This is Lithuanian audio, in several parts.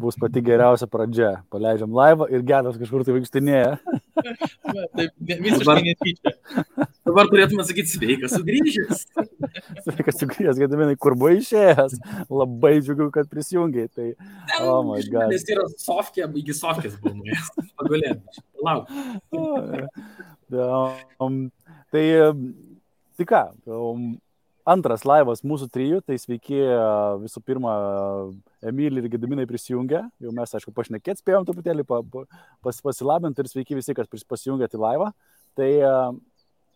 bus pati geriausia pradžia. Paleidžiam laivą ir Gedas kažkur tai vaikštinėja. Taip, visiškai netyčia. Dabar turėtume sakyti sveikas sugrįžęs. Sveikas sugrįžęs, Gediminai, kur buvo išėjęs. Labai džiugiu, kad prisijungiai. Tai, oh my God. Nes yra Sofkė, iki Sofkės buvo nuėjęs. Pagulėm. Lauk. Tai ką, antras laivas mūsų trijų, tai sveiki visų pirma Emilį ir Gediminai prisijungę. Jau mes, aišku, pašnekėt spėjom truputėlį pasilabinti ir sveiki visi, kas prisijungėt į laivą. Tai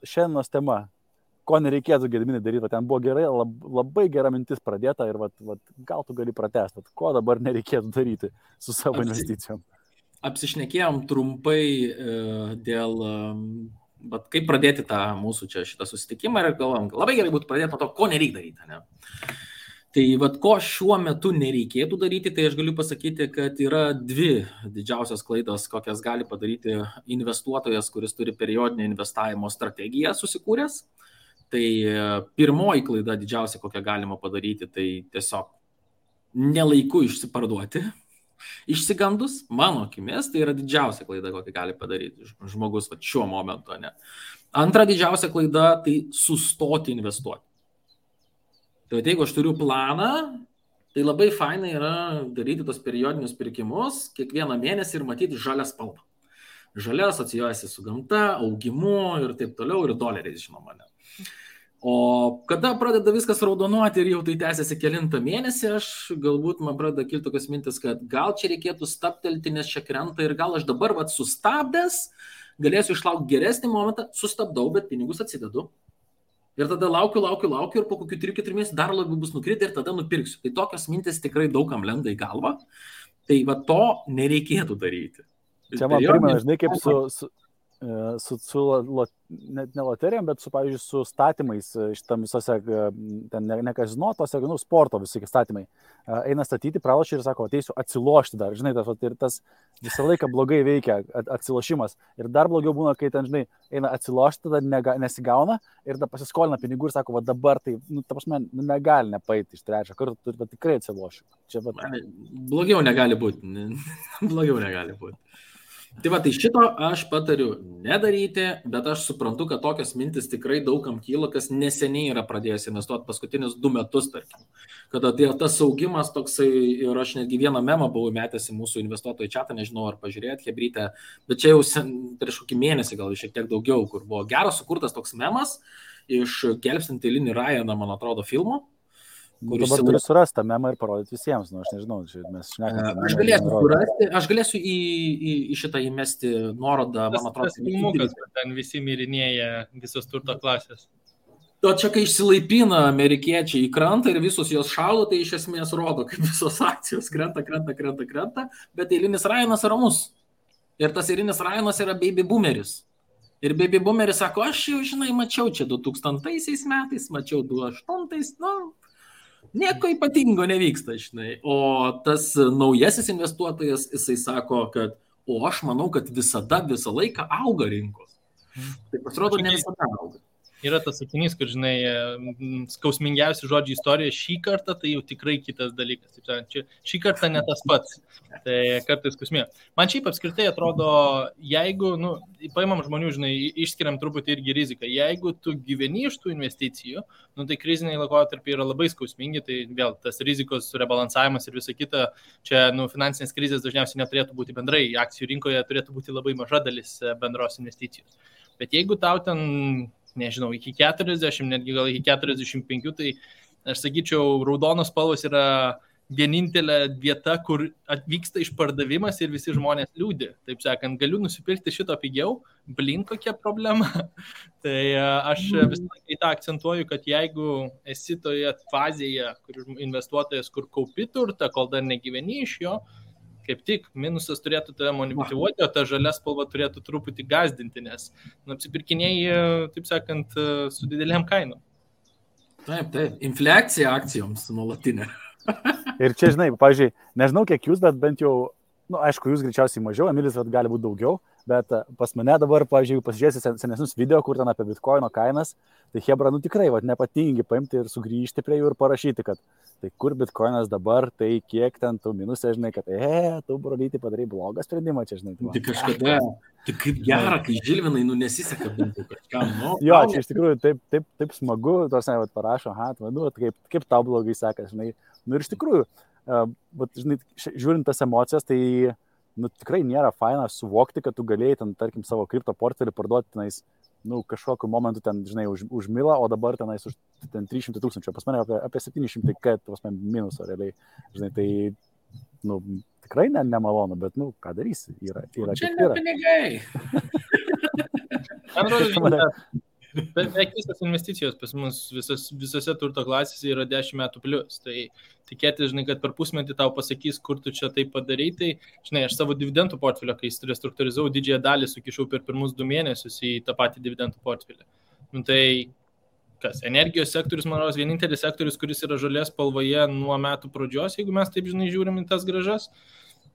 šiandienos tema, ko nereikėtų Gediminai daryti, ten buvo gerai, labai gera mintis pradėta ir gal tu gali pratęsti, ko dabar nereikėtų daryti su savo investicijom. Apsišnekėjom trumpai dėl... Bet kaip pradėti tą mūsų šitą susitikimą ir galvom, labai gerai būtų pradėti nuo to, ko nereikia daryti. Ne? Tai ko šiuo metu nereikėtų daryti, tai aš galiu pasakyti, kad yra dvi didžiausios klaidos, kokias gali padaryti investuotojas, kuris turi periodinę investavimo strategiją susikūręs. Tai pirmoji klaida didžiausia, kokią galima padaryti, tai tiesiog nelaiku išsiparduoti. Išsigandus, mano akimis, tai yra didžiausia klaida, kokią gali padaryti žmogus šiuo momentu. Ne? Antra didžiausia klaida, tai sustoti investuoti. Tai jeigu aš turiu planą, tai labai fainai yra daryti tos periodinius pirkimus kiekvieną mėnesį ir matyti žalią spalvą. Žalia asocijuojasi su gamta, augimu ir taip toliau, ir doleriais, žinoma. Ne? O kada pradeda viskas raudonuoti ir jau tai tęsiasi kelintą mėnesį, aš galbūt man pradeda kilti tokios mintis, kad gal čia reikėtų stabtelti, nes čia krenta ir gal aš dabar sustabdęs galėsiu išlaukti geresnį momentą, sustabdau, bet pinigus atsidedu. Ir tada laukiu ir po kokių 3-4 mėnesių dar labiau bus nukritę ir tada nupirksiu. Tai tokios mintis tikrai daugam lenda į galvą. Tai to nereikėtų daryti. Čia man primena, žinai, kaip net ne loterijom, bet pavyzdžiui, su statymais šitam visose, ten ne kazino, tose, sporto visi statymai. Eina statyti, pralošia ir sako, ateisiu atsilošti dar, žinai, ir tas visą laiką blogai veikia atsilošimas. Ir dar blogiau būna, kai ten, žinai, eina atsilošti, tada nesigauna ir tada pasiskolina pinigų ir sako, dabar tai, ta prasme, negali nepaiti iš trečią kartą, tikrai atsilošiu. Blogiau negali būti. Blogiau negali būti. Tai šito aš patariu nedaryti, bet aš suprantu, kad tokios mintis tikrai daugam kyla, kas neseniai yra pradėjęs investuoti paskutinius 2 metus, tarkim. Kada tas augimas toksai, ir aš netgi vieną memą buvau metęs į mūsų investuotojų chatą, nežinau ar pažiūrėt, hebrytę, bet čia jau prieš kokį mėnesį, gal šiek tiek daugiau, kur buvo geras sukurtas toks memas iš Gelbstint eilinį Ryaną, man atrodo, filmo. Dabar turiu surasti tą memą ir parodyti visiems, aš nežinau, mes šnekame. Aš galėsiu į šitą įmesti nuorodą, man atrodo. Tas filmukas, ten visi mirinėja visos turto klasės. O čia, kai išsilaipina amerikiečiai į krantą ir visus jos šaudo, tai iš esmės rodo, kaip visos akcijos krenta, bet eilinis Ryanas ramus. Ir tas eilinis Ryanas yra baby boomeris. Ir baby boomeris sako, aš jau, žinai, mačiau čia 2000 metais, mačiau 2008, nieko ypatingo nevyksta, žinai. O tas naujasis investuotojas, jisai sako, kad aš manau, kad visą laiką auga rinkos. Tai pasirodo, ne visada auga. Yra tas sakinys, kur, žinai, skausmingiausi žodžiai istorijoje šį kartą, tai jau tikrai kitas dalykas. Šį kartą ne tas pats. Tai kartais skausmė. Man šiaip apskritai atrodo, jeigu, paimam žmonių, žinai, išskiriam truputį irgi riziką. Jeigu tu gyveni iš tų investicijų, tai kriziniai laikotarpiai yra labai skausmingi, tai vėl tas rizikos rebalansavimas ir visa kita, čia, finansinės krizės dažniausiai neturėtų būti bendrai. Akcijų rinkoje turėtų būti labai maža dalis bendros investicijos. Bet jeigu tau ten, nežinau, iki 40, netgi gal iki 45, tai aš sakyčiau, raudonos spalvos yra vienintelė vieta, kur atvyksta išpardavimas ir visi žmonės liūdi. Taip sakant, galiu nusipirkti šito pigiau, kokia problema. Tai aš visą laiką į tą akcentuoju, kad jeigu esi toje fazėje, kur investuotojas, kur kaupi turtą, kol dar negyveni iš jo, kaip tik minusas turėtų tave motyvuoti, o ta žalia spalva turėtų truputį gazdinti, nes apsipirkinėjai, taip sakant, su didelėm kainom. Taip, infliacija akcijoms nuolatinė. Ir čia, žinai, pavyzdžiui, nežinau kiek jūs, bet bent jau nu, aišku, jūs greičiausiai mažiau, Emilis gali būti daugiau, bet pas mane dabar, pavyzdžiui, jeigu pasižiūrėsi senesnius video, kur ten apie bitkoino kainas, tai hebra, nu tikrai, nepatingi paimti ir sugrįžti prie jų ir parašyti, kad tai kur bitkoinas dabar, tai kiek ten tu minusė, žinai, kad tu, brolyti, padarai blogą sprendimą čia, žinai. Tai kažkada, tai kaip gera, kai Žilvinai, nu nesiseka bent kažkam, nu. Jo, čia iš tikrųjų taip smagu, tarsi, parašo, kaip tau blogai sekas, žinai. Nu ir iš tikrųjų, žinai, žiūrint tas emocijas, tai nu, tikrai nėra faina suvokti, kad tu galėjai ten, tarkim, savo kripto portfelį parduoti tenais, nu, kažkokiu momentu ten, žinai, už milą, o dabar tenais už ten 300 000, pas mane apie 700, kad pas mane minuso realiai, žinai, tai, nu, tikrai nemalonu, bet, nu, ką darysi, yra čia ne pinigai. Beveik visas investicijos pas mus visose turto klasėse yra 10 metų plius. Tai tikėtis, žinai, kad per pusmetį tau pasakys, kur tu čia tai padarai. Tai, žinai, aš savo dividendų portfelio, kai restruktūrizavau, didžiąją dalį sukišau per pirmus 2 mėnesius į tą patį dividendų portfelį. Nu, tai kas? Energijos sektorius, man rodos, vienintelis sektorius, kuris yra žalės spalvoje nuo metų pradžios, jeigu mes taip, žinai, žiūrim į tas grąžas.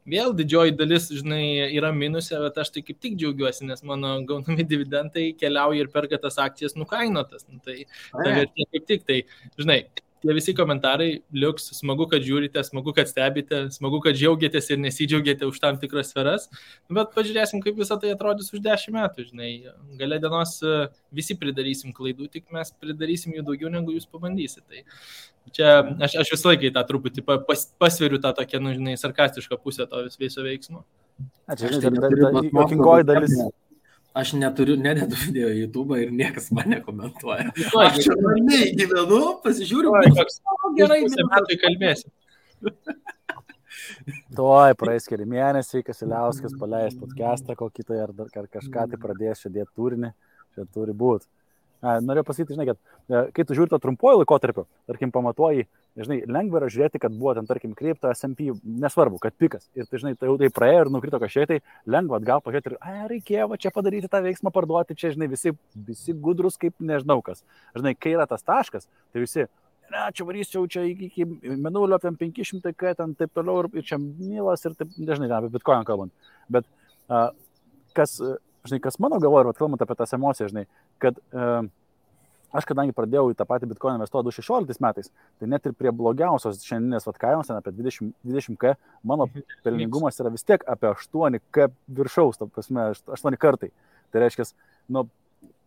Vėl didžioji dalis, žinai, yra minusė, bet aš tai kaip tik džiaugiuosi, nes mano gaunami dividendai keliauja ir perka tas akcijas nukainotas. Nu, tai vertė kaip tik, tai, žinai, tie visi komentarai liuks, smagu, kad žiūrite, smagu, kad stebite, smagu, kad džiaugiatės ir nesidžiaugiate už tam tikras sferas, bet pažiūrėsim, kaip visą tai atrodys už 10 metų, žinai. Gale dienos visi pridarysim klaidų, tik mes pridarysim jų daugiau, negu jūs pabandysit. Tai čia aš visą laiką tą truputį pasveriu tą tokią, nu, žinai, sarkastišką pusę to viso veiksmo. Jokingoji dalis. Aš nededu video į YouTube ir niekas mane komentuoja. Aš čia ramiai gyvenu, pasižiūriu, gerai, metai kalbėsim. Tuoj praeis keli mėnesiai, Kasiliauskas paleis podcastą kokį tai ar kažką tai pradės čia dėti turinį, čia turi būti. Norėjau pasakyti, žinai, kad kai tu žiūri to trumpuoju laikotarpiu, tarkim, pamatuoji, žinai, lengva yra žiūrėti, kad buvo ten, tarkim, kripto, S&P, nesvarbu, kad pikas. Ir tai, žinai, tai jau tai praėjo ir nukrito kažkiek, tai lengva atgal pažiūrėti ir, reikėjo čia padaryti tą veiksmą, parduoti, čia, žinai, visi gudrus kaip nežinau kas. Žinai, kai yra tas taškas, tai visi, čia varysiu, čia iki menulio, ten 500, ten taip toliau ir čia milas ir taip, nežinai, apie bitkoiną kalbant. Bet kas mano galvoje, kalbant apie tas emocijas, žinai, kad aš kadangi pradėjau į tą patį bitkoiną investuoti 2016 metais, tai net ir prie blogiausios šiandieninės kainos, apie 20K, mano pelningumas yra vis tiek apie 8K viršaus, ta prasme, 8 kartai. Tai reiškia, nu,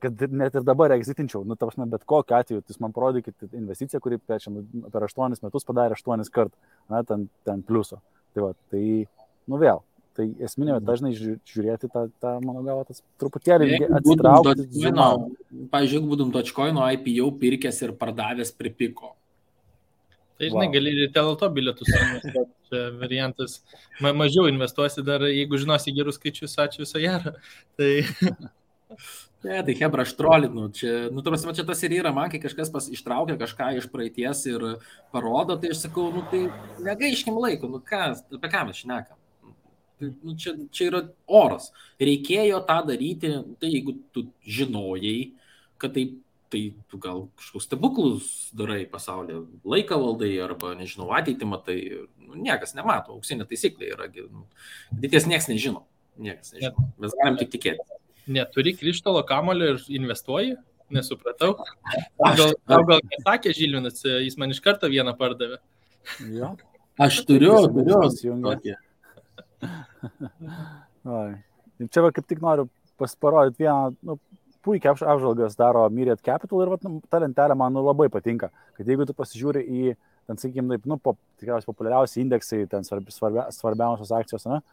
kad net ir dabar exitinčiau, nu, ta prasme, bet kokiu atveju, jūs man parodykite investiciją, kuri per 8 metus padarė 8 kartų, na, ten pliuso. Tai va, tai, nu vėl. Tai esminė, dažnai žiūrėti tą mano galvą, tas truputėlį atsitraukti. Pavyzdžiui, jeigu būtum Dogecoin'o IPO pirkęs ir pardavęs pripiko. Tai, žinai, gali ir teleto bilietus investuoti, variantas. Mažiau investuosi dar, jeigu žinosi gerus skaičius, ačiū viso gero. Tai... Ne, tai hebra, aš trolinu. Čia tas ir yra, man, kai kažkas ištraukia kažką iš praeities ir parodo, tai aš sakau, nu tai negaiškim laiko, nu ką, apie ką mes šnekam. Nu, čia yra oras. Reikėjo tą daryti, tai jeigu tu žinojai, kad tai tu gal kažkokius stebuklus darai pasaulyje, laiką valdai arba, nežinau, ateitį matai, nu, niekas nemato, auksinė taisyklė yra, nu, ateities niekas nežino, mes galim tik tikėti. Neturi krištolo kamulio ir investuoji? Nesupratau. Gal nesakė Žilvinas, jis man iš karto vieną pardavė. Jo. Aš turiu. Čia kaip tik noriu parodyti vieną, nu, puikiai apžvalgas daro Myriad Capital ir ta lentelė man labai patinka, kad jeigu tu pasižiūri į, ten, sakykime, nu, tikriausiai populiariausi indeksai, ten svarbiausios akcijos, ne,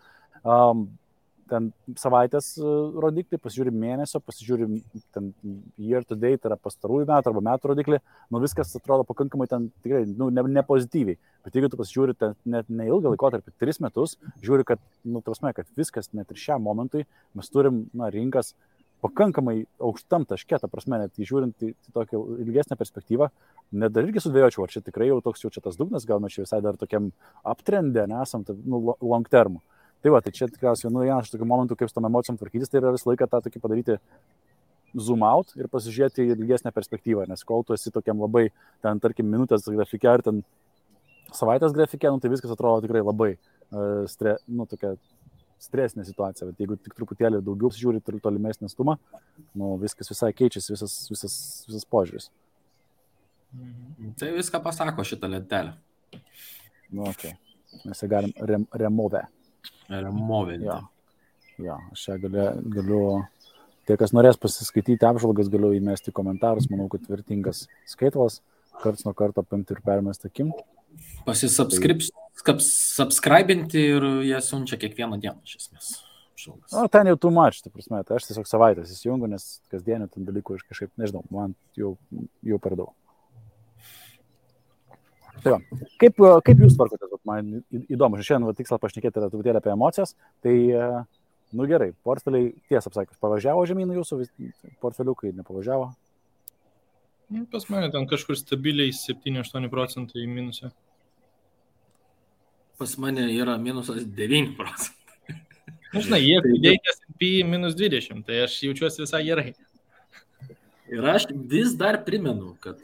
ten savaitės rodiklį, pasižiūri mėnesio, pasižiūri ten year to date, tai yra pastarųjų metų arba metų rodiklį, nu viskas atrodo pakankamai ten tikrai, nu, ne pozityviai. Bet jeigu tu pasižiūri ten net neilgą laikotarpį, 3 metus, žiūri, kad, nu, prasme, kad viskas net ir šiam momentui mes turim, na, rinkas pakankamai aukštam taške, ta prasme, net žiūrint į tokią ilgesnę perspektyvą, net dar irgi sudvėjočiau, ar čia tikrai jau toks jau čia tas dugnas, gal mes čia visai dar tokiam uptrendė nesam, tai, nu, long term. Tai va, tai čia tikriausiai, nu, vienas iš tokių momentų, kaip su tom emocijom tvarkytis, tai yra visą laiką tą tokį padaryti zoom out ir pasižiūrėti į ilgesnę perspektyvą, nes kol tu esi tokiam labai, ten, tarkim, minutės grafike ar ten savaitės grafike, nu, tai viskas atrodo tikrai labai, tokia stresinė situacija, bet jeigu tik truputėlį daugiau žiūri tolimesnį atstumą, viskas visai keičiasi, visas požiūris. Tai viską pasako šitą lentelę. Okay. Mes ją galim removinti. Jo, aš čia galiu, tie, kas norės pasiskaityti apžvalgas, galiu įmesti komentarus, manau, kad vertingas skaitvalas, karts nuo karto paimti ir permesti akim. Subscribinti ir jie siunčia kiekvieną dieną, iš esmės. Ten jau too much, ta prasme, tai aš tiesiog savaitės įsijungiu, nes kasdienį ten dalykų aš kažkaip, nežinau, man jau per daug. Tai va, kaip jūs tvarkotės, man įdomu, šiandien tikslas pašnekėti yra truputėlį apie emocijas, tai, gerai, portfeliai, tiesą apsakius, pavažiavo žemyn jūsų, portfeliukai nepavažiavo? Pas mane ten kažkur stabiliai 7-8% į minusą. Pas mane yra minusas 9%. Žinai, jie dėjai S&P -20, tai aš jaučiuosi visai gerai. Ir aš vis dar primenu, kad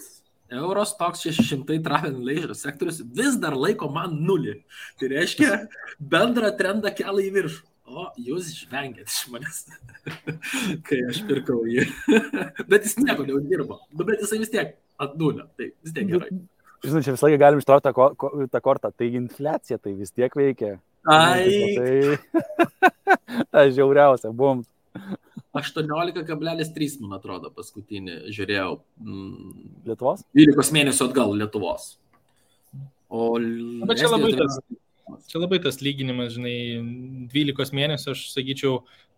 Eurostoxx 600 travel and leisure sektorius vis dar laiko man 0. Tai reiškia, bendrą trendą kelia į viršų. O jūs žvengėt iš manęs, kai aš pirkau jį. Bet jis nieko neuždirbo. Bet jisai vis tiek ant 0. Tai vis tiek gerai. Žinai, čia visą laiką galim ištraukti tą kortą. Tai infliacija tai vis tiek veikia. Ai. Tai žiauriausia, bum. 18,3, man atrodo, paskutinį žiūrėjau. Lietuvos? 12 mėnesių atgal Lietuvos. Bet čia labai tas lyginimas, žinai, 12 mėnesių, aš sakyčiau,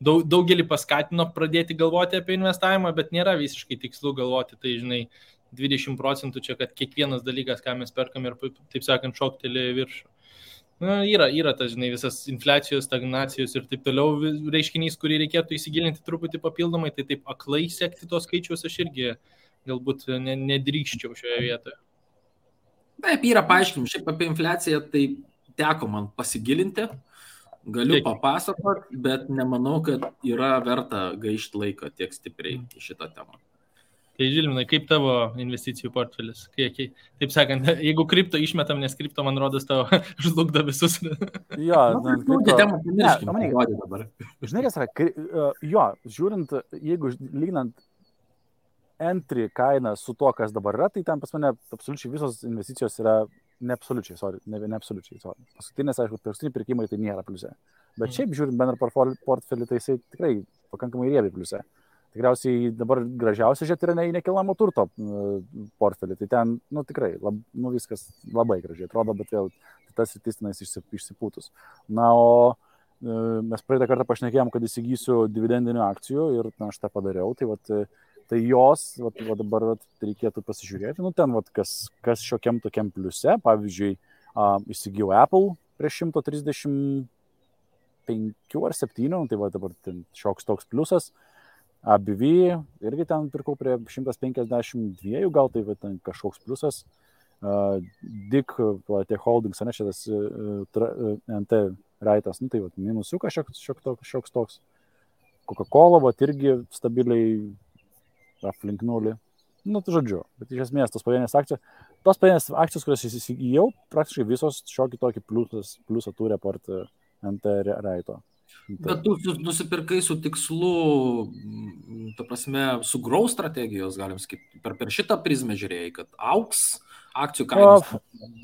daugelį paskatino pradėti galvoti apie investavimą, bet nėra visiškai tikslu galvoti, tai, žinai, 20% čia, kad kiekvienas dalykas, ką mes perkam ir, taip sakant, šokteli viršų. Yra tas, žinai, visas infliacijos, stagnacijos ir taip toliau reiškinys, kurį reikėtų įsigilinti truputį papildomai, tai taip aklai sekti tos skaičius aš irgi galbūt nedrįkščiau šioje vietoje. Taip, yra paaiškinimų. Šiaip apie infliaciją tai teko man pasigilinti, galiu papasakoti, bet nemanau, kad yra verta gaišti laiką tiek stipriai į šitą temą. Tai Žilvinai, kaip tavo investicijų portfelis? Taip sakant, jeigu kripto išmetam, nes kripto, man rodos, tavo žlugdo visus. Jo, dabar. Žinai, kas yra, žiūrint, jeigu lyginant entry kainą su to, kas dabar yra, tai ten pas mane absoliučiai visos investicijos yra ne absoliučiai. Paskutinės, aišku, paskutiniai pirkimai tai nėra pliuse. Bet šiaip žiūrint bendrą portfelį, tai jisai tikrai pakankamai riebiai pliuse. Tikriausiai dabar gražiausia žiūrėti yra į nekilnojamo turto portfelį. Tai ten, tikrai, viskas labai gražiai atrodo, bet vėl tas sritis tenais išsipūtus. O mes praeitą kartą pašnekėjom, kad įsigysiu dividendinių akcijų ir aš tą padariau. Tai jos, dabar reikėtų pasižiūrėti. Ten, kas šiokiam tokiam pliuse. Pavyzdžiui, įsigijau Apple prieš 135 ar 7, tai dabar šioks toks pliusas. ABV irgi ten pirkau prie 152, gal tai ten kažkoks pliusas. DIC, tie holdings, ne, šitas NT raitas, tai minusiukas šioks toks. Coca-Cola, irgi stabiliai aplink 0. Žodžiu, bet iš esmės tos pavienės akcijos, kurias įsigijau, praktiškai visos šiokį tokį pliusą turi apart NT raito. Bet tu nusipirkai su tikslu, ta prasme, su growth strategijos, galim sakyti, per šitą prizmę žiūrėjai, kad auks akcijų kainos,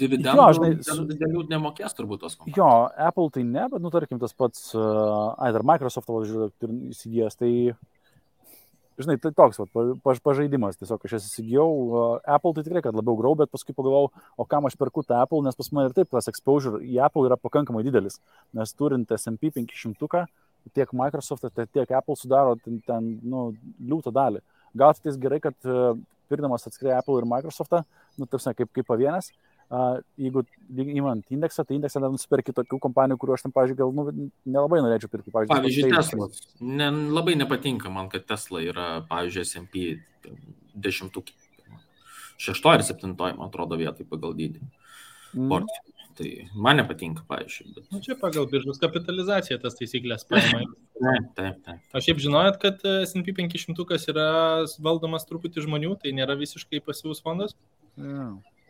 dividendų didelių nemokės turbūt tos kompanijos. Jo, Apple tai ne, bet, tarkim, tas pats, dar Microsoft įsigijęs, tai, žinai, tai toks pažaidimas, tiesiog aš įsigijau Apple, tai tikrai, kad labiau grau, bet paskui pagalvojau, o kam aš perku tą Apple, nes pas mane ir taip tas exposure į Apple yra pakankamai didelis, nes turint S&P 500, tiek Microsoft, tiek Apple sudaro ten liūtą dalį. Gal tai gerai, kad pirkdamas atskirai Apple ir Microsoftą, kaip pavienės, jeigu įmant indeksą, tai indeksą nusipirki tokių kompanijų, kuriuo aš tam, pavyzdžiui, gal nelabai norėčiau pirkti. Pavyzdžiui, Tesla. Labai nepatinka man, kad Tesla yra, pavyzdžiui, S&P 10, 6 ar 7, man atrodo, vietai pagal dydį. Tai man nepatinka, pavyzdžiui. Bet... Čia pagal biržos kapitalizaciją tas taisyklės paima. Taip. Aš šiaip žinojot, kad S&P 500 yra valdomas truputį žmonių, tai nėra visiškai pasyvus fondas?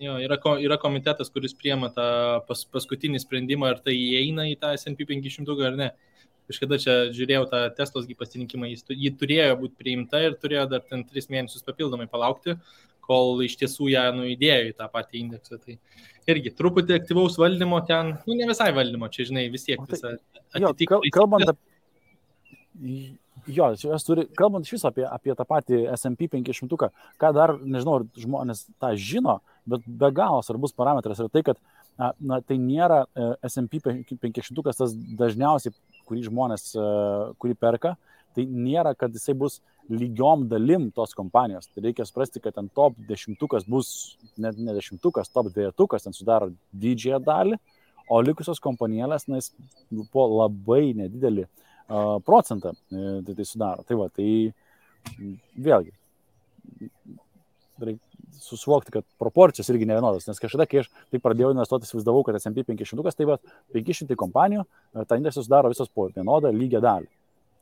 Jo, yra komitetas, kuris priema tą paskutinį sprendimą, ar tai įeina į tą S&P 500 ar ne. Kažkada čia žiūrėjau tą Teslos pasirinkimą, jį turėjo būti priimta ir turėjo dar ten 3 mėnesius papildomai palaukti, kol iš tiesų ją įdėjo į tą patį indeksą. Tai irgi truputį aktyvaus valdymo ten, ne visai valdymo, čia žinai, vis tiek visą atitikti. Kalbant iš viso apie tą patį S&P 500, ką dar, nežinau, ar žmonės tą žino, bet be galo svarbus parametras yra tai, kad tai nėra S&P 500 tas dažniausiai, kurį perka, tai nėra, kad jisai bus lygiom dalim tos kompanijos. Tai reikia suprasti, kad ten top 10 bus, net ne 10, top 2 ten sudaro didžiąją dalį, o likusios kompanėlės, po labai nedidelį procentą tai sudaro. Tai va, tai vėlgi, reikia susivokti, kad proporcijos irgi nevienodos, nes kažkada, kai aš tai pradėjau investuoti, įsivaizdavau, kad S&P 500, tai va, 500 kompanijų, tą indeksą sudaro visos po vienodą lygią dalį.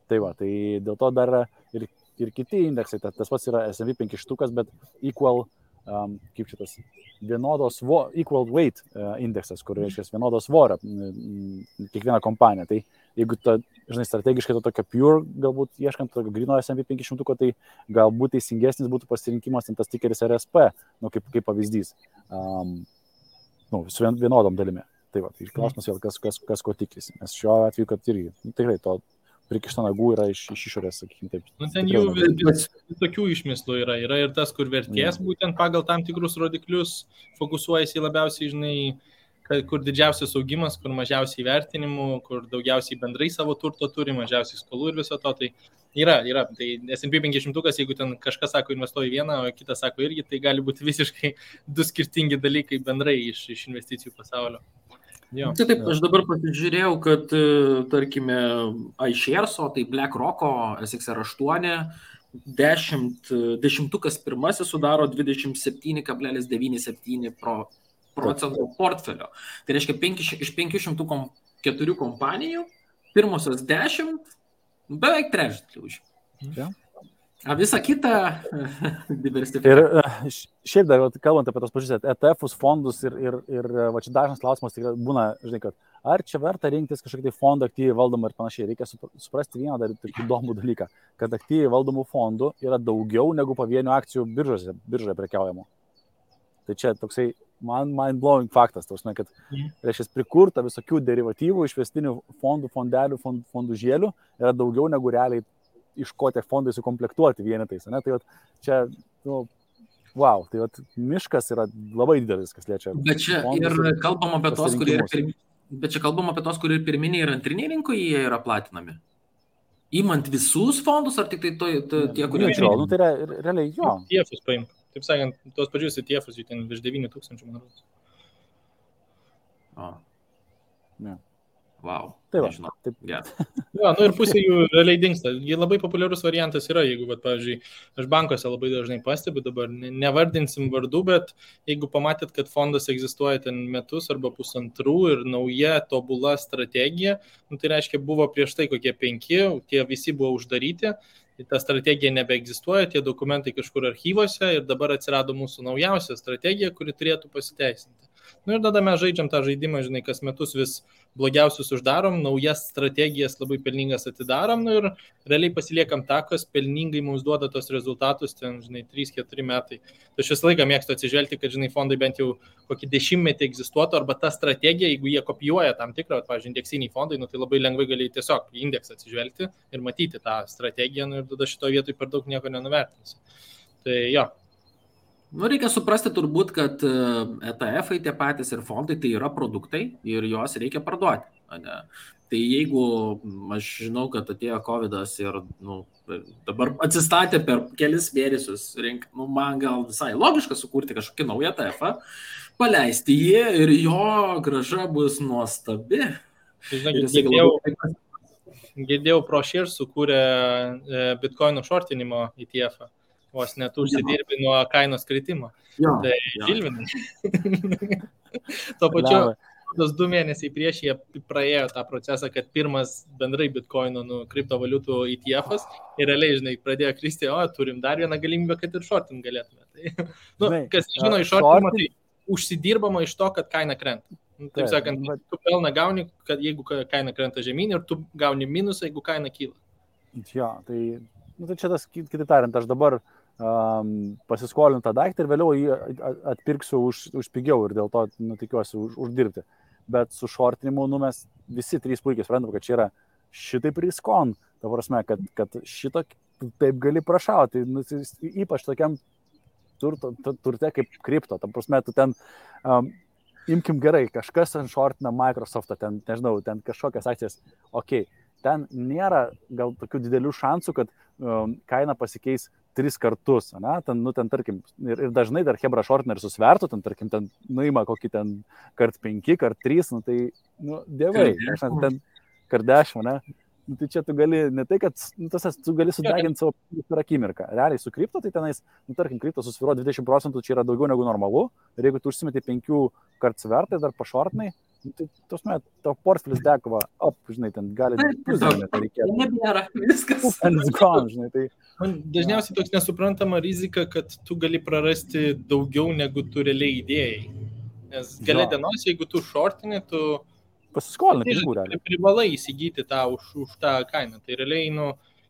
Tai va, tai dėl to dar ir kiti indeksai, tas pats yra S&P 500, bet equal, kaip šitas, equal weight indeksas, kur reiškia vienodos svorio kiekviena kompanija. Tai jeigu strategiškai to tokio pure, galbūt ieškant tokio grino S&P 500, tai galbūt teisingesnis būtų pasirinkimas tas tikeris RSP, kaip pavyzdys, su vienodom dalimi. Tai va, tai klausimas vėl, kas ko tikisi. Nes šiuo atveju, kad irgi, tikrai to prikišta nagų yra iš išorės, sakykime taip. Ten jų tokių išmislų yra ir tas, kur vertės būtent pagal tam tikrus rodiklius fokusuojasi labiausiai, žinai, kur didžiausias augimas, kur mažiausiai vertinimų, kur daugiausiai bendrai savo turto turi, mažiausiai skolų ir viso to, tai yra. Tai S&P 500, jeigu ten kažkas sako investuoja vieną, o kitas sako irgi, tai gali būti visiškai 2 skirtingi dalykai bendrai iš investicijų pasaulio. Jo. Taip, aš dabar pasižiūrėjau, kad, tarkime, iShares, tai BlackRock'o SXR8, 10 pirmasis sudaro 27,97% portfelio. Tai reiškia, iš 504 kompanijų, pirmosios 10, beveik trečdalį už. Ja. A visą kitą diversifikaciją. Ir šiaip dar, kalbant apie tos pačius ETF-us, fondus ir va čia dažnas klausimas tikrai būna, žinai, kad ar čia verta rinktis kažkokį fondą aktyviai valdomą ir panašiai. Reikia suprasti vieną dar įdomų dalyką, kad aktyviai valdomų fondų yra daugiau negu pavienių akcijų biržoje prekiaujamų. Tai čia toksai mind-blowing faktas, tausme, kad reiškia prikurta visokių derivatyvų, išvestinių fondų, fondelių, fondų žėlių yra daugiau negu realiai iš ko tie fondai sukomplektuoti vienetais. Ne? Tai čia, wow, tai miškas yra labai didelis, kas liečia. Bet čia ir kalbam apie tos, kurie ir pirminiai ir antriniai rinkoje jie yra platinami. Įmant visus fondus, ar tik tai tie, kurie... Tai yra realiai jo. ETF-us paimk. Taip sakant, tos pačius ETF-us, jų ten virš 9,000, man rodos. Ne. Wow. Tai va, nežinau. taip. Yeah. Ja, ir pusė jų realiai dingsta. Jie labai populiarus variantas yra, jeigu, pavyzdžiui, aš bankuose labai dažnai pastebiu, dabar nevardinsim vardų, bet jeigu pamatėt, kad fondas egzistuoja ten metus arba pusantrų ir nauja tobula strategija, tai reiškia, buvo prieš tai kokie 5, tie visi buvo uždaryti, ta strategija nebeegzistuoja, tie dokumentai kažkur archyvose ir dabar atsirado mūsų naujausia strategija, kuri turėtų pasiteisinti. Ir tada mes žaidžiam tą žaidimą, žinai, kas metus vis blogiausius uždarom, naujas strategijas labai pelningas atidarom ir realiai pasiliekam tą, kas pelningai mums duoda tos rezultatus, ten, žinai, 3-4 metai. Tai aš visą laiką mėgstu atsižvelgti, kad, žinai, fondai bent jau kokį 10 metį egzistuotų, arba ta strategija, jeigu jie kopijuoja tam tikrą, pavyzdžiui, indeksiniai fondai, tai labai lengvai gali tiesiog į indeksą atsižvelgti ir matyti tą strategiją, ir tada šito vietoj per daug nieko nenuvertinsi. Tai jo. Reikia suprasti turbūt, kad ETF-ai tie patys ir fondai tai yra produktai ir juos reikia parduoti. Ne? Tai jeigu aš žinau, kad atėjo COVID-as ir dabar atsistatė per kelis mėnesius, man gal visai logiška sukurti kažkokį naują ETF-ą, paleisti jį ir jo grąža bus nuostabi. Girdėjau, ProShares sukūrė Bitcoinų shortinimo ETF-ą. Vos net užsidirbi nuo kainos kritimo. Tai Žilvinai. Tuo pačiu, tos 2 mėnesiai prieš jie praėjo tą procesą, kad pirmas bendrai Bitcoino kriptovaliutų ETF-as ir realiai, žinai, pradėjo kristi, turim dar vieną galimybę, kad ir shortin galėtume. Tai, kas žino iš shortinimo, tai užsidirbama iš to, kad kaina krenta. Taip sakant, tu pelną gauni, kad jeigu kaina krenta žemyn ir tu gauni minusą, jeigu kaina kyla. Jo, tai čia tas, kitaip tariant, aš dabar pasiskolinu tą daiktą ir vėliau jį atpirksiu už pigiau ir dėl to, tikiuosi, uždirbti. Bet su šortinimu, mes visi trys puikiai suprantam, kad čia yra šitaip riskon. Ta prasme, kad šito taip gali prašauti, ypač tokiam turte kaip kripto. Ta prasme, tu ten... Imkim gerai, kažkas ten šortina Microsoft'ą, ten, nežinau, ten kažkokias akcijas, ten nėra gal tokių didelių šansų, kad kaina pasikeis 3 kartus, ne? Ten, tarkim, ir dažnai dar hebra šortina ir susvertų, tarkim, nuima kokį ten kart 5, kart 3, tai, dievai, ten kart 10, ne? Tai čia tu gali, ne tai, kad tu gali sudeginti savo per akimirką. Realiai su kripto, tai tenais, tarkim, kripto susviro 20%, čia yra daugiau negu normalu. Ir jeigu tu užsimeti 5 kart svertai, dar pašortinai, tai tavo portfelis dekova, žinai, ten gali... Nebėra, viskas. Žinai, tai... Dažniausiai toks nesuprantama rizika, kad tu gali prarasti daugiau, negu tu realiai įdėjai. Nes gale dienos, jeigu tu šortini, tu... Pasiskolinai pinigų realiai. Privalai įsigyti tą už tą kainą. Tai realiai,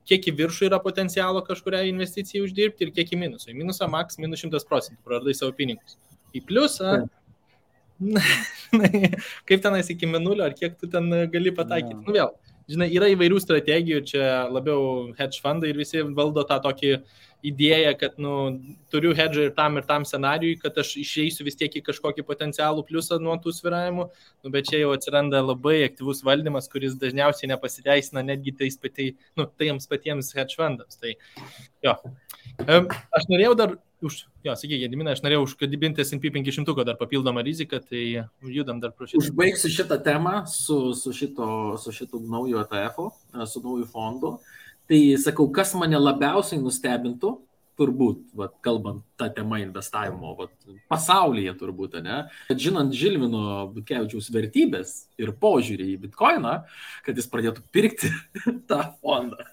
kiek į viršų yra potencialo kažkuria investicijai uždirbti ir kiek į minusą. Į minusą maks minus 100%, praradai savo pinigus. Į pliusą, kaip tenais iki minulio, ar kiek tu ten gali pataikyti. Vėl, žinai, yra įvairių strategijų, čia labiau hedge fundai ir visi valdo tą tokį idėją, kad turiu hedžą ir tam scenarijui, kad aš išeisiu vis tiek į kažkokį potencialų pliusą nuo tų svyravimų, bet čia jau atsiranda labai aktyvus valdymas, kuris dažniausiai nepasiteisina netgi tiems patiems hedge fundams. Tai jo. Aš norėjau dar sakyk, Gediminas, aš norėjau užkadibinti S&P 500 dar papildomą riziką, tai judam dar pro šitą. Užbaigsiu šitą temą su šitų naujo ETF-u, su nauju fondu. Tai sakau, kas mane labiausiai nustebintų, turbūt, kalbant tą temą investavimo, pasaulyje turbūt, ne? Kad žinant Žilvino Butkevičiaus vertybės ir požiūrį į Bitcoiną, kad jis pradėtų pirkti tą fondą.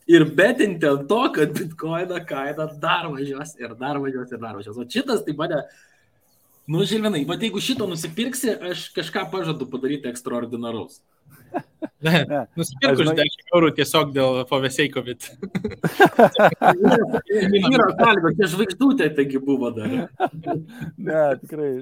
Ir betinti ant to, kad Bitcoino kaina dar važiuos ir dar važiuos ir dar važiuos. O šitas tai mane, Žilvinai, jeigu šito nusipirksi, aš kažką pažadu padaryti ekstraordinaraus. Nusipirku už 10 eurų tiesiog dėl FOVSEICOVID. Yra kalbė, čia žvaigždutė taigi buvo dar. Ne, tikrai.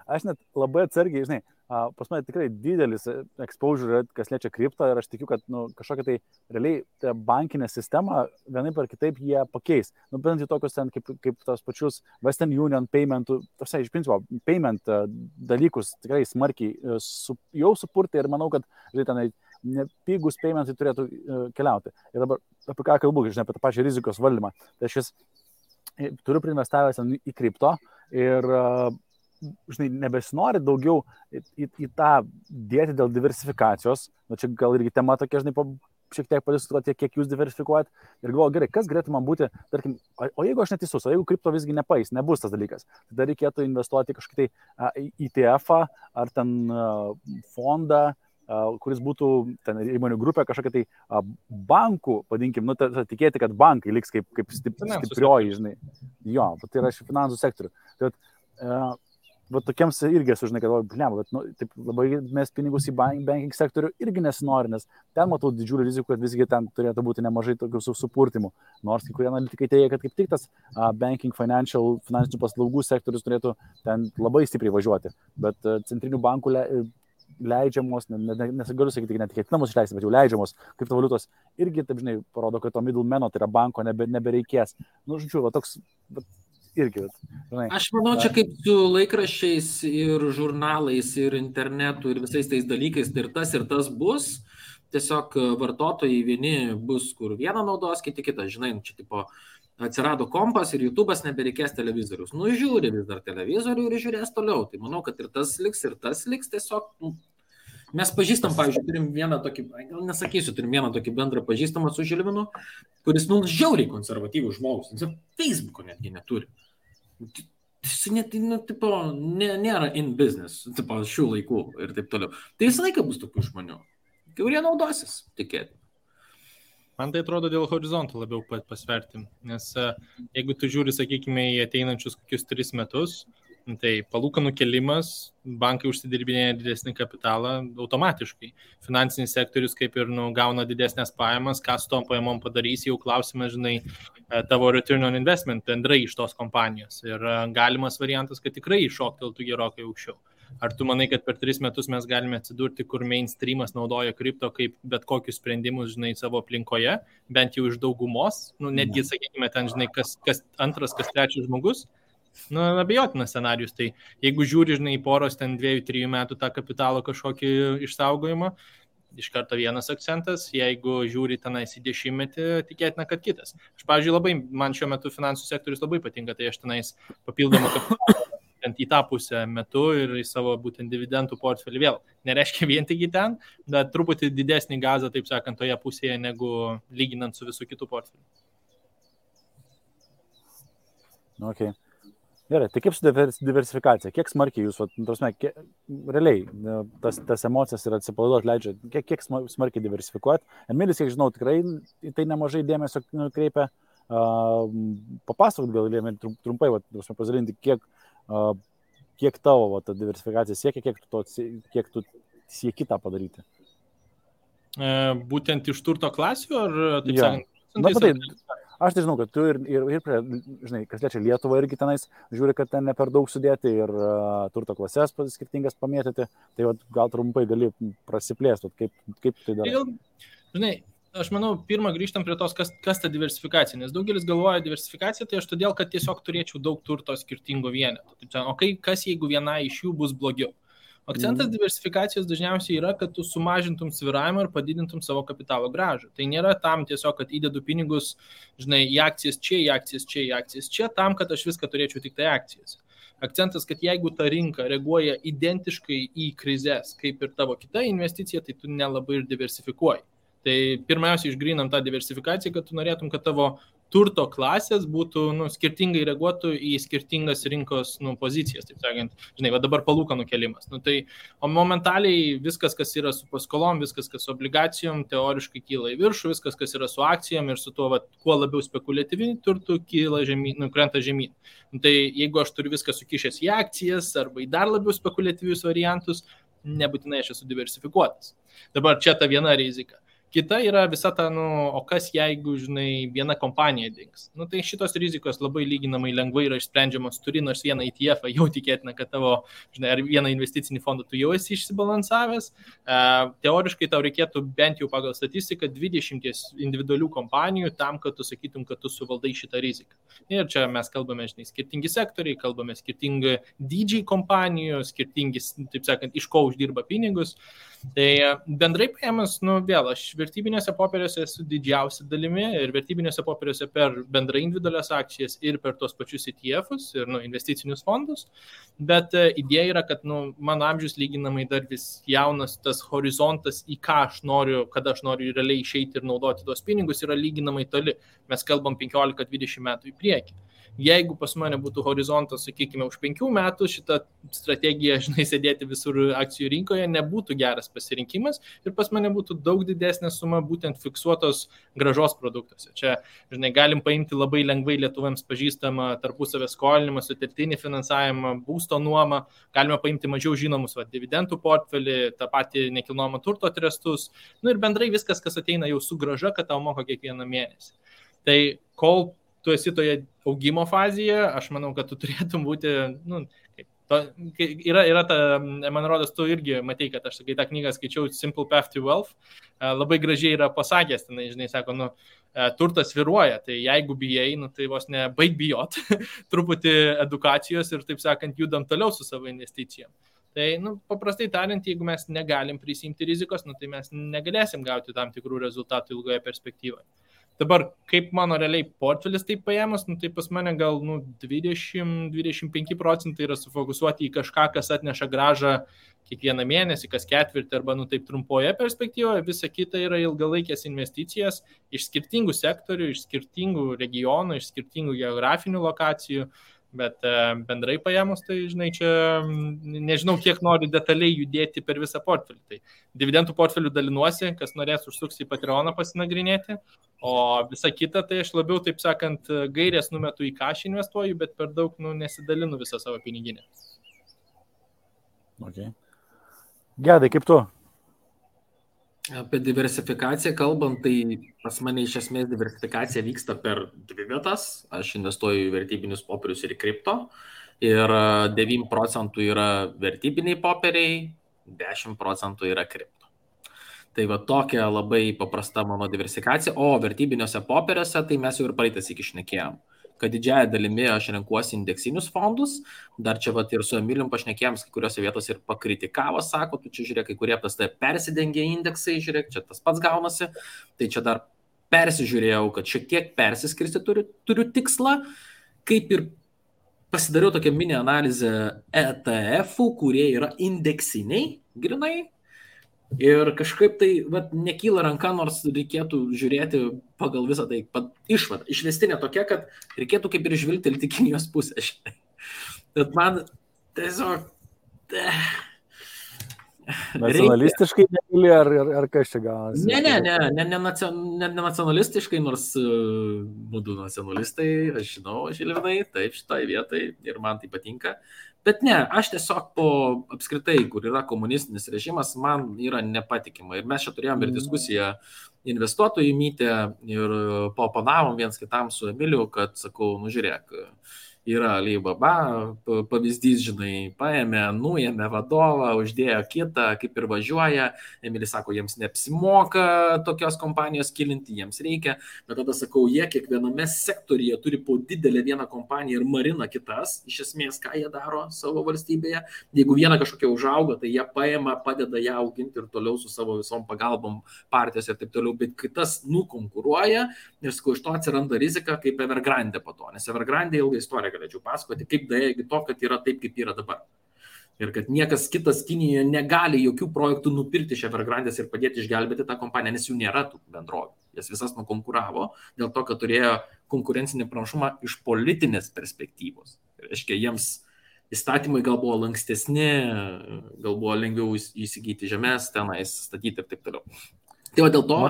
Aš net labai atsargiai, žinai, pas mane tikrai didelis exposure, kas liečia kriptą ir aš tikiu, kad kažkokia tai realiai bankinė sistema vienaip ar kitaip jie pakeis. Bent į tokius ten kaip tos pačius Western Union paymentų, iš principo, payment dalykus tikrai smarkiai jau supurti ir manau, kad tenai pigus paymentai turėtų keliauti. Ir dabar apie ką kalbu, žinai, apie tą pačią rizikos valdymą. Tai aš turiu priinvestavęs į kripto ir žinai, nebesinori daugiau į tą dėti dėl diversifikacijos. Čia gal irgi tema tokia, žinai, šiek tiek padiskutuoti, kiek jūs diversifikuojat. Ir galvoju, gerai, kas galėtų man būti, tarkim, o jeigu aš neteisus, o jeigu kripto visgi nepais, nebus tas dalykas, tada reikėtų investuoti kažkokį tai ETF-ą ar ten fondą, kuris būtų ten įmonių grupė kažkokia tai bankų, vadinkim, tikėti, kad bankai liks kaip stiprioji, žinai. Jo, tai yra iš finansų sektorių. Tai tokiems irgi esu, žinai, kad taip labai mes pinigus į banking sektorių irgi nesinori, nes ten matau didžiulį riziką, kad visgi ten turėtų būti nemažai tokių supurtimų. Nors kai kurie analitikai teigia, kad kaip tik tas banking finansinių paslaugų sektorius turėtų ten labai stipriai važiuoti. Bet centrinių bankų leidžiamos, nesigaliu sakyti, net ketinamos išleisti, bet jau leidžiamos kriptovaliutos irgi, taip žinai, parodo, kad to middlemano, tai yra banko, nebereikės. Žodžiu, toks... Irgi, žinai. Aš manau, čia kaip su laikraščiais ir žurnalais ir internetu ir visais tais dalykais, tai ir tas bus. Tiesiog vartotojai vieni bus, kur vieną naudos, kiti kitą. Žinai, čia tipo atsirado kompas ir YouTube'as nebereikės televizorius. Žiūri vis dar televizorių ir žiūrės toliau. Tai manau, kad ir tas liks tiesiog. Mes pažįstam, pavyzdžiui, turim vieną tokį, gal nesakysiu, turim vieną tokį bendrą pažįstamą su Žilvinu, kuris žiauriai konservatyvų žmogus. Jis Facebook'o netgi neturi. Jis nėra in business, šių laikų ir taip toliau. Tai visą laiką bus tokių žmonių, kurie naudosis, tikėti. Man tai atrodo dėl horizontų labiau pasverti, nes jeigu tu žiūri, sakykime, į ateinančius kokius 3 metus, Tai palūkanų kelimas, bankai užsidirbinėja didesnį kapitalą automatiškai. Finansinis sektorius kaip ir gauna didesnės pajamas, ką su tom pajamom padarys, jau klausimas, žinai, tavo return on investment bendrai iš tos kompanijos. Ir galimas variantas, kad tikrai iššokteltų gerokai aukščiau. Ar tu manai, kad per 3 metus mes galime atsidurti, kur mainstreamas naudoja kripto kaip bet kokius sprendimus, žinai, savo aplinkoje, bent jau iš daugumos, netgi, sakykime, ten, žinai, kas antras, kas trečias žmogus, abejotinas scenarius. Tai jeigu žiūri, žinai, poros ten 2-3 metų tą kapitalo kažkokį išsaugojimą, iš karto vienas akcentas, jeigu žiūri tenais į 10, tikėtina, kad kitas. Aš, pavyzdžiui, man šiuo metu finansų sektorius labai patinka, tai aš tenais papildomą kapitalą į tą pusę metu ir į savo būtent dividendų portfelį vėl. Nereiškia vien tik į ten, bet truputį didesnį gazą, taip sakant, toje pusėje, negu lyginant su visų kitų portfelių. Okay. Gerai, tai kaip su diversifikacija? Kiek smarkiai jūs, realiai, tas emocijas ir atsipalaiduot leidžia, kiek smarkiai diversifikuoti? Emilis, kiek žinau, tikrai tai nemažai dėmesio kreipia. Papasakot gal trumpai, pasidalinti, kiek tavo ta diversifikacija siekia, kiek tu sieki tą padaryti? Būtent iš turto klasių, ar taip sakant? Aš tai žinau, kad tu ir žinai, kas liečia Lietuvą irgi tenais, žiūri, kad ten ne per daug sudėti ir turto klasės skirtingas pamėtyti, tai gal trumpai gali prasiplėsti, kaip tai darai. Žinai, aš manau, pirmą grįžtam prie tos, kas ta diversifikacija, nes daugelis galvoja diversifikacija, tai aš todėl, kad tiesiog turėčiau daug turto skirtingų vienetų. O kas jeigu viena iš jų bus blogiau? Akcentas diversifikacijos dažniausiai yra, kad tu sumažintum svyravimą ir padidintum savo kapitalo grąžą. Tai nėra tam tiesiog, kad įdedu pinigus, žinai, į akcijas čia, į akcijas čia, į akcijas čia, tam, kad aš viską turėčiau tik tai akcijas. Akcentas, kad jeigu ta rinka reaguoja identiškai į krizės, kaip ir tavo kita investicija, tai tu nelabai ir diversifikuoji. Tai pirmiausia, išgrynam tą diversifikaciją, kad tu norėtum, kad tavo turto klasės būtų skirtingai reaguotų į skirtingas rinkos pozicijas, taip sakant. Žinai, dabar palūkanų kelimas. O momentaliai viskas, kas yra su paskolom, viskas, kas su obligacijom, teoriškai kyla į viršų, viskas, kas yra su akcijom ir su tuo, kuo labiau spekuliatyviniu turtu, kyla žemyn, krenta žemyn. Tai jeigu aš turiu viską sukišęs į akcijas arba į dar labiau spekuliatyvius variantus, nebūtinai aš esu diversifikuotas. Dabar čia ta viena rizika. Kita yra visa ta, o kas jeigu, žinai, viena kompanija dings. Tai šitos rizikos labai lyginamai lengvai yra išsprendžiamos, turi nors vieną ETF, jau tikėtina, kad tavo, žinai, ar vieną investicinį fondą tu jau esi išsibalansavęs. Teoriškai tau reikėtų bent jau pagal statistiką 20 individualių kompanijų tam, kad tu sakytum, kad tu suvaldai šitą riziką. Ir čia mes kalbame, žinai, skirtingi sektoriai, kalbame skirtingi dydžiai kompanijų, skirtingi, taip sakant, iš ko uždirba pinigus. Tai bendrai paėmus, vėl, aš vertybinėse popieriuose esu didžiausia dalimi ir vertybinėse popieriuose per bendrai individualias akcijas ir per tos pačius ETF-us ir investicinius fondus, bet idėja yra, kad mano amžius lyginamai dar vis jaunas, tas horizontas, į ką aš noriu, kada aš noriu realiai išeiti ir naudoti tuos pinigus, yra lyginamai toli. Mes kalbam 15-20 metų į priekį. Jeigu pas mane būtų horizontas, sakykime, už 5 metų, šita strategija, žinai, sėdėti visur akcijų rinkoje nebūtų geras pasirinkimas ir pas mane būtų daug didesnė suma būtent fiksuotos grąžos produktuose. Čia, žinai, galim paimti labai lengvai lietuvėms pažįstamą tarpusavę skolinimą, sutelktinį finansavimą, būsto nuomą, galime paimti mažiau žinomus dividendų portfelį, tą patį nekilnojamo turto trestus, ir bendrai viskas, kas ateina jau su grąža, kad tau moka kiekvieną mėnesį. Tai kol tu esi toje augimo fazėje, aš manau, kad tu turėtum būti, yra ta, man rodos, tu irgi matei, kad aš tą knygą skaičiau Simple Path to Wealth, labai gražiai yra pasakęs, tenai, žinai, sako, turtas svyruoja, tai jeigu bijai, tai vos ne baig bijot, truputį edukacijos ir, taip sakant, judam toliau su savo investicijom. Tai, paprastai tariant, jeigu mes negalim prisimti rizikos, tai mes negalėsim gauti tam tikrų rezultatų ilgoje perspektyvoje. Dabar, kaip mano realiai portfelis taip paėmus, tai pas mane gal 20-25% yra sufokusuoti į kažką, kas atneša grąžą kiekvieną mėnesį, kas ketvirtį arba taip trumpoje perspektyvoje. Visa kita yra ilgalaikės investicijas iš skirtingų sektorių, iš skirtingų regionų, iš skirtingų geografinių lokacijų. Bet bendrai paėmus, tai, žinai, čia nežinau, kiek nori detaliai judėti per visą portfelį. Tai dividendų portfelių dalinuosi, kas norės užsuks į Patreoną pasinagrinėti, o visa kita, tai aš labiau, taip sakant, gairės numetu į cash investuoju, bet per daug nesidalinu visą savo piniginę. Okay. Gedai, kaip tu? Apie diversifikaciją kalbant, tai pas mane iš esmės diversifikacija vyksta per dvi vietas. Aš investuoju į vertybinius popierius ir į kripto. Ir 9% yra vertybiniai popieriai, 10% yra kripto. Tai va tokia labai paprasta mano diversifikacija. O vertybiniuose popieriuose, tai mes jau ir praeitas iki šnekėjom, kad didžiąją dalimi aš renkuosi indeksinius fondus. Dar čia vat ir su Emilijum pašnekėjom, kai kuriuose vietose ir pakritikavo, sako, tu čia žiūrėk, kai kurie pas tai persidengia indeksai, žiūrėk, čia tas pats gaunasi. Tai čia dar persižiūrėjau, kad šiek tiek persiskirsti turiu tikslą, kaip ir pasidariau tokią mini analizę ETF-ų, kurie yra indeksiniai, grinai. Ir kažkaip tai nekyla ranka, nors reikėtų žiūrėti pagal visą tai išvadą. Išvestinė tokia, kad reikėtų kaip ir žvilgtelti Kinijos pusę. Bet man tiesiog... Nacionalistiškai negali, ar kas čia gaunasi? Ne nacionalistiškai, nors būdu nacionalistai, aš žinau, Žilvinai, taip šitai vietai ir man tai patinka. Bet ne, aš tiesiog apskritai, kur yra komunistinis režimas, man yra nepatikima. Ir mes čia turėjom ir diskusiją investuotojų mytę ir paopanavom viens kitam su Emiliu, kad sakau, žiūrėk, yra Alibaba, pavyzdys, žinai, paėmė, nuėmė vadovą, uždėjo kitą, kaip ir važiuoja. Emilis sako, jiems neapsimoka tokios kompanijos kilinti, jiems reikia. Bet tada sakau, jie kiekviename sektoriuje turi po didelę vieną kompaniją ir marina kitas. Iš esmės, ką jie daro savo valstybėje. Jeigu viena kažkokia užauga, tai jie paėma, padeda ją auginti ir toliau su savo visom pagalbom partijos ir taip toliau. Bet kitas nukonkuruoja ir sakau, iš to atsiranda rizika kaip Evergrande po to. Nes Evergrande ilgą istoriją galėčiau pasakoti, kaip daėjo iki to, kad yra taip, kaip yra dabar. Ir kad niekas kitas Kinijoje negali jokių projektų nupirkti iš Evergrandės ir padėti išgelbėti tą kompaniją, nes jų nėra tų bendrovių. Jas visas nukonkuravo dėl to, kad turėjo konkurencinį pranašumą iš politinės perspektyvos. Reiškia, jiems įstatymai gal buvo lankstesni, gal buvo lengviau įsigyti žemės, tenais statyti ir taip toliau. Tai va dėl to,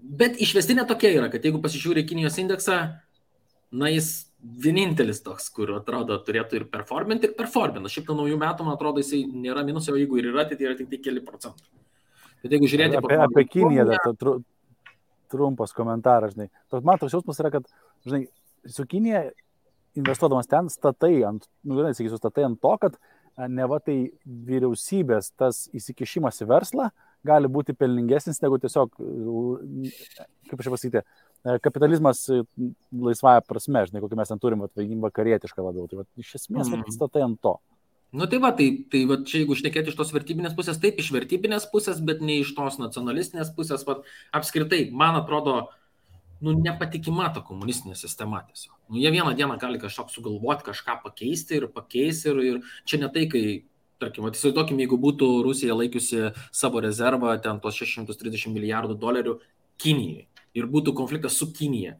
bet išvestinė tokia yra, kad jeigu pasižiūrė Kinijos indeksą, jis vienintelis toks, kur atrodo turėtų ir performinti, ir performina. Šiaip nuo naujų metų, man atrodo, jisai nėra minusio, o jeigu ir yra, tai yra tik keli procentai. Bet jeigu žiūrėti... Apie Kiniją, trumpas komentaras, žinai. Man toks jausmas yra, kad, žinai, su Kinija investuodamas ten statai ant to, kad neva tai vyriausybės tas įsikišimas į verslą gali būti pelningesnis negu tiesiog, kaip aš pasakyti, kapitalizmas laisvąją prasme, žinai, kokį mes ten turim, vakarietišką labiau. Tai iš esmės statai ant to. Tai čia jeigu šnekėti iš tos vertybinės pusės, taip, iš vertybinės pusės, bet ne iš tos nacionalistinės pusės. Apskritai, man atrodo, nepatikima ta komunistinė sistema tiesiog. Jie vieną dieną gali kažką sugalvoti, kažką pakeisti ir čia ne tai, kai, tarkim, įsivaizduokim, jeigu būtų Rusija laikiusi savo rezervą, ten tos $630 milijardų Kinijai ir būtų konfliktas su Kinija.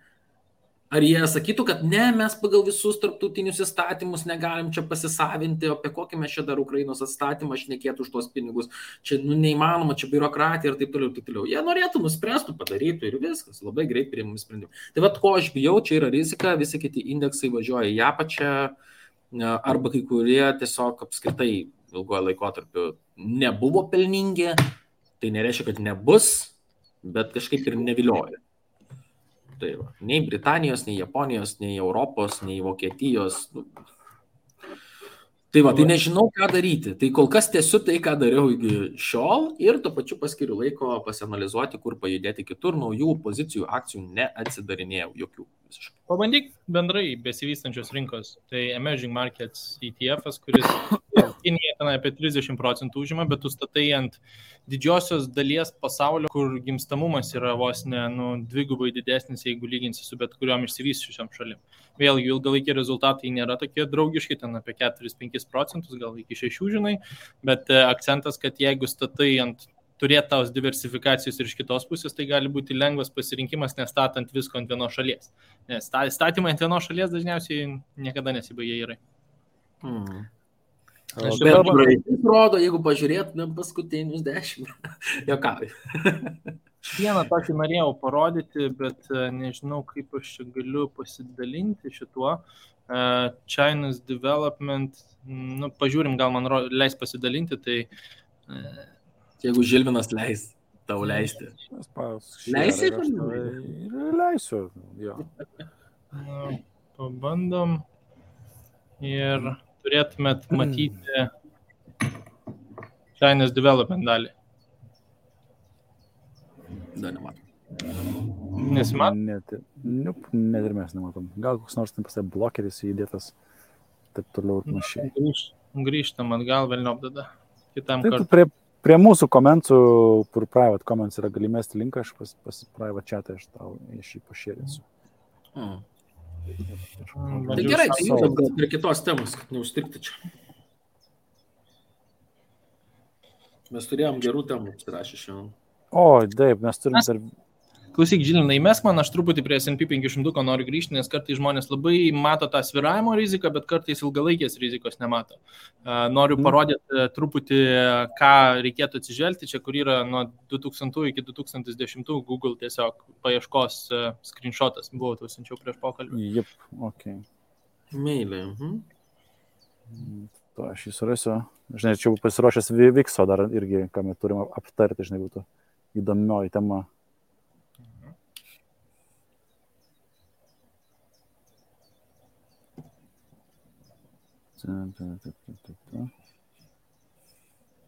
Ar jie sakytų, kad ne, mes pagal visus tarptautinius įstatymus negalim čia pasisavinti, apie kokį mes čia dar Ukrainos atstatymą šnekėtų už tos pinigus, čia neįmanoma, čia biurokratija ir taip toliau. Jie norėtų, nuspręstų, padarytų ir viskas, labai greit priimami sprendimai. Tai ko aš bijau, čia yra rizika, visi kiti indeksai važiuoja į apačią, arba kai kurie tiesiog apskritai ilgojo laikotarpiu nebuvo pelningi, tai nereiškia, kad nebus, bet kažkaip ir nevilioja. Tai va, nei Britanijos, nei Japonijos, nei Europos, nei Vokietijos. Tai va, tai nežinau, ką daryti. Tai kol kas tiesiu tai, ką dariau iki šiol ir tuo pačiu paskiriu laiko pasianalizuoti, kur pajudėti kitur, naujų pozicijų, akcijų neatsidarinėjau jokių. Visiškai. Pabandyk bendrai besivystančios rinkos. Tai Emerging Markets ETF'as, kuris Kinija ten apie 30% užima, bet tu statai ant didžiosios dalies pasaulio, kur gimstamumas yra vos ne dvigubai didesnis, jeigu lyginsi su bet kuriuom išsivysčiusiam šalim. Vėlgi ilgalaikiai rezultatai nėra tokie draugiški, ten apie 4-5%, gal iki 6%, žinai, bet akcentas, kad jeigu statai ant turėti tos diversifikacijos ir iš kitos pusės, tai gali būti lengvas pasirinkimas, nestatant visko ant vienos šalies. Nes statymai ant vienos šalies dažniausiai niekada nesibaigia gerai. Bet praeitis rodo, jeigu pažiūrėtumėm paskutinius 10. Jokauju. Vieną tokį norėjau parodyti, bet nežinau, kaip aš čia galiu pasidalinti šituo. China's Development, pažiūrim, gal man leis pasidalinti, tai... Jeigu Žilvinas leis tau leisti. Leisi? Leisiu, jo. Pabandom ir turėtumėt matyti China's Development dalį. Dar nematom. Nesimato? Net ir mes nematom. Gal koks nors ten pasai blokeris įdėtas, taip toliau ir panašiai. Grįžtam atgal, velniop tada. Kitam tai kartui. Prie mūsų komentų, kur private comments yra gali mesti linką, aš pas private chatą aš tau iš jį pašėrinsiu. Tai gerai, tai judam gal prie kitos temos, kad neužstrigti čia. Mes turėjom gerų temų apsirašę šiandien. O, taip, mes turim dar... Klausyk, Žilinai, įmesk man, aš truputį prie S&P 500 noriu grįžti, nes kartais žmonės labai mato tą svyravimo riziką, bet kartais ilgalaikės rizikos nemato. Noriu parodyti truputį, ką reikėtų atsižvelgti, čia kur yra nuo 2000 iki 2010 Google tiesiog paieškos screenshotas, buvo tau siunčiau prieš pokalbį. Jep, okei. Meilė. To aš jį surasiu. Žinai, čia pasiruošęs Vikso dar irgi, ką mes turim aptarti, žinai, būtų įdomioji tema.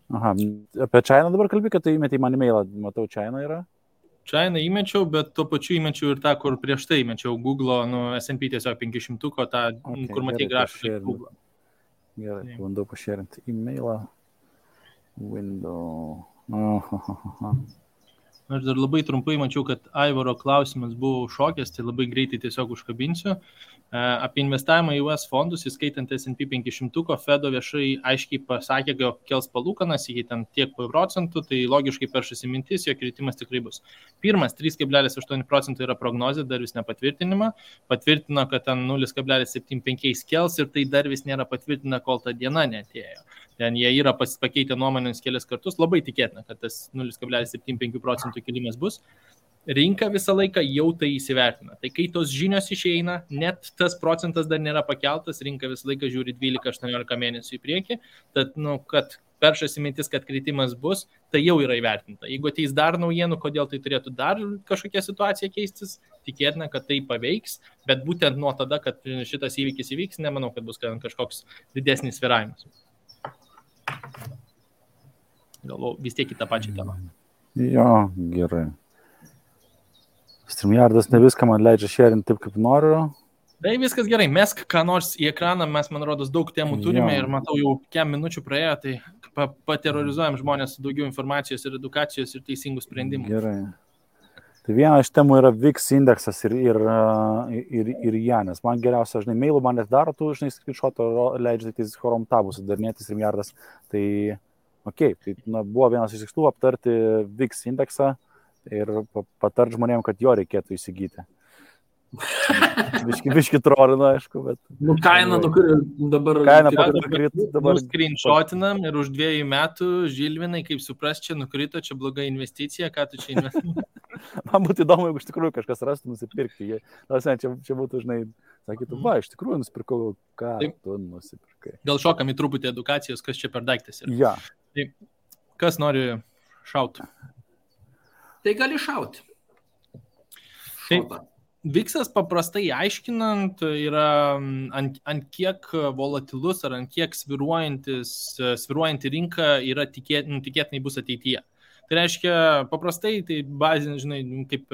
Aha, apie China dabar kalbė, kad tai įmetė į man e-mailą, matau, China yra? China įmečiau, bet tuo pačiu įmečiau ir tą, kur prieš tai įmečiau Google, S&P tiesiog 500, tą, kur matai grafiką Google. Gerai, bandau pašėrinti e-mailą. Window. Aš dar labai trumpai mačiau, kad Aivaro klausimas buvo šokęs, tai labai greitai tiesiog užkabinsiu. Apie investavimą į US fondus, įskaitant S&P 500, Fedo viešai aiškiai pasakė, kad kels palūkanas iki ten tiek procentų, tai logiškai peršasi mintis, jo kritimas tikrai bus. Pirmas, 3,8% yra prognozė, dar vis nepatvirtinima. Patvirtino, kad ten 0,75 kels ir tai dar vis nėra patvirtina, kol ta diena neatėjo. Ten jie yra pakeitę nuomonės kelias kartus, labai tikėtina, kad tas 0,75% kilimas bus. Rinka visą laiką jau tai įsivertina. Tai kai tos žinios išeina, net tas procentas dar nėra pakeltas, rinka visą laiką žiūri 12-18 mėnesių į priekį, tad, kad peršasi mintis, kad kritimas bus, tai jau yra įvertinta. Jeigu ateis dar naujienų, kodėl tai turėtų dar kažkokia situacija keistis, tikėtina, kad tai paveiks, bet būtent nuo tada, kad šitas įvykis įvyks, nemanau, kad bus kažkoks didesnis sviravimas. Galvau, vis tiek į tą pačią temą. Jo, gerai. StreamYardas ne viską man leidžia šėrinti taip, kaip noriu. Tai viskas gerai, mesk ką nors į ekraną, mes, man rodos, daug temų turime ir matau, jau kiek minučių praėjo, tai paterrorizuojam žmonės su daugiau informacijos ir edukacijos ir teisingų sprendimų. Gerai. Tai viena iš temų yra VIX indeksas ir Janis. Man geriausia, žinai, mailų man net daro, tu, žinai, screenshotą leidžia tik Chrome tabus sudarinėti StreamYardas. Tai, okei, tai buvo vienas iš tikslų aptarti VIX indeksą ir patart žmonėm, kad jo reikėtų įsigyti. Biški trolina, aišku, bet... Kaina dabar... Kaina nukrito dabar... Screenshotinam ir už 2 metų, Žilvinai, kaip supras, čia nukrito, čia bloga investicija, ką tu čia investuoji? Man būtų įdomu, jeigu iš tikrųjų kažkas rastų nusipirkti. Čia būtų, žinai, sakytų, iš tikrųjų nusipirkau, ką tu nusipirkai. Gal šokam į truputį edukacijos, kas čia per daiktas yra. Ja. Tai kas nori šauti? Tai gali šauti. Šauta. VIX-as paprastai aiškinant yra ant kiek volatilus ar ant kiek svyruojanti rinka yra tikėtinai bus ateityje. Tai reiškia, paprastai, tai bazinė, žinai, kaip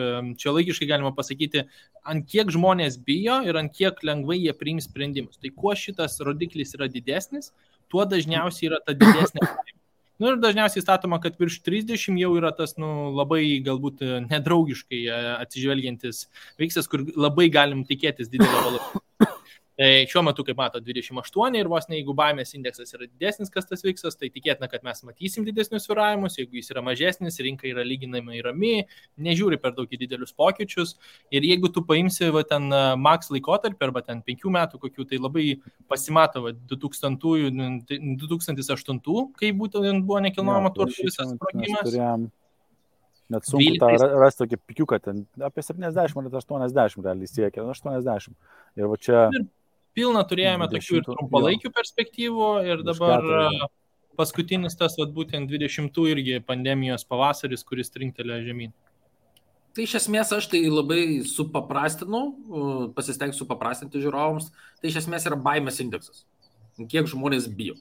čia laikiškai galima pasakyti, ant kiek žmonės bijo ir ant kiek lengvai jie priims sprendimus. Tai kuo šitas rodiklis yra didesnis, tuo dažniausiai yra ta didesnė. Ir dažniausiai statoma, kad virš 30 jau yra tas labai galbūt nedraugiškai atsižvelgiantis VIX-as, kur labai galim tikėtis didelio volatilumą. Tai šiuo metu, kaip mato, 28 ir vos ne, jeigu baimės indeksas yra didesnis, kas tas vyksas, tai tikėtina, kad mes matysim didesnius svyravimus, jeigu jis yra mažesnis, rinka yra lyginamai rami, nežiūri per daug į didelius pokyčius ir jeigu tu paimsi ten max laikotarpį arba ten 5 metų kokių, tai labai pasimato 2008, kai būtent buvo nekilnojamo turto visas sprogimas. Net sunku tą rasti tokį pikiuką, ten apie 70 ar 80 realiai siekia, 80. Ir va čia... Ir pilna turėjome tokių ir trumpalaikių perspektyvų ir dabar paskutinis tas, būtent 20 irgi pandemijos pavasaris, kuris trinktelėjo žemyn. Tai iš esmės aš tai labai supaprastinu, pasistengsiu supaprastinti žiūrovams, tai iš esmės yra baimės indeksas. Kiek žmonės bijo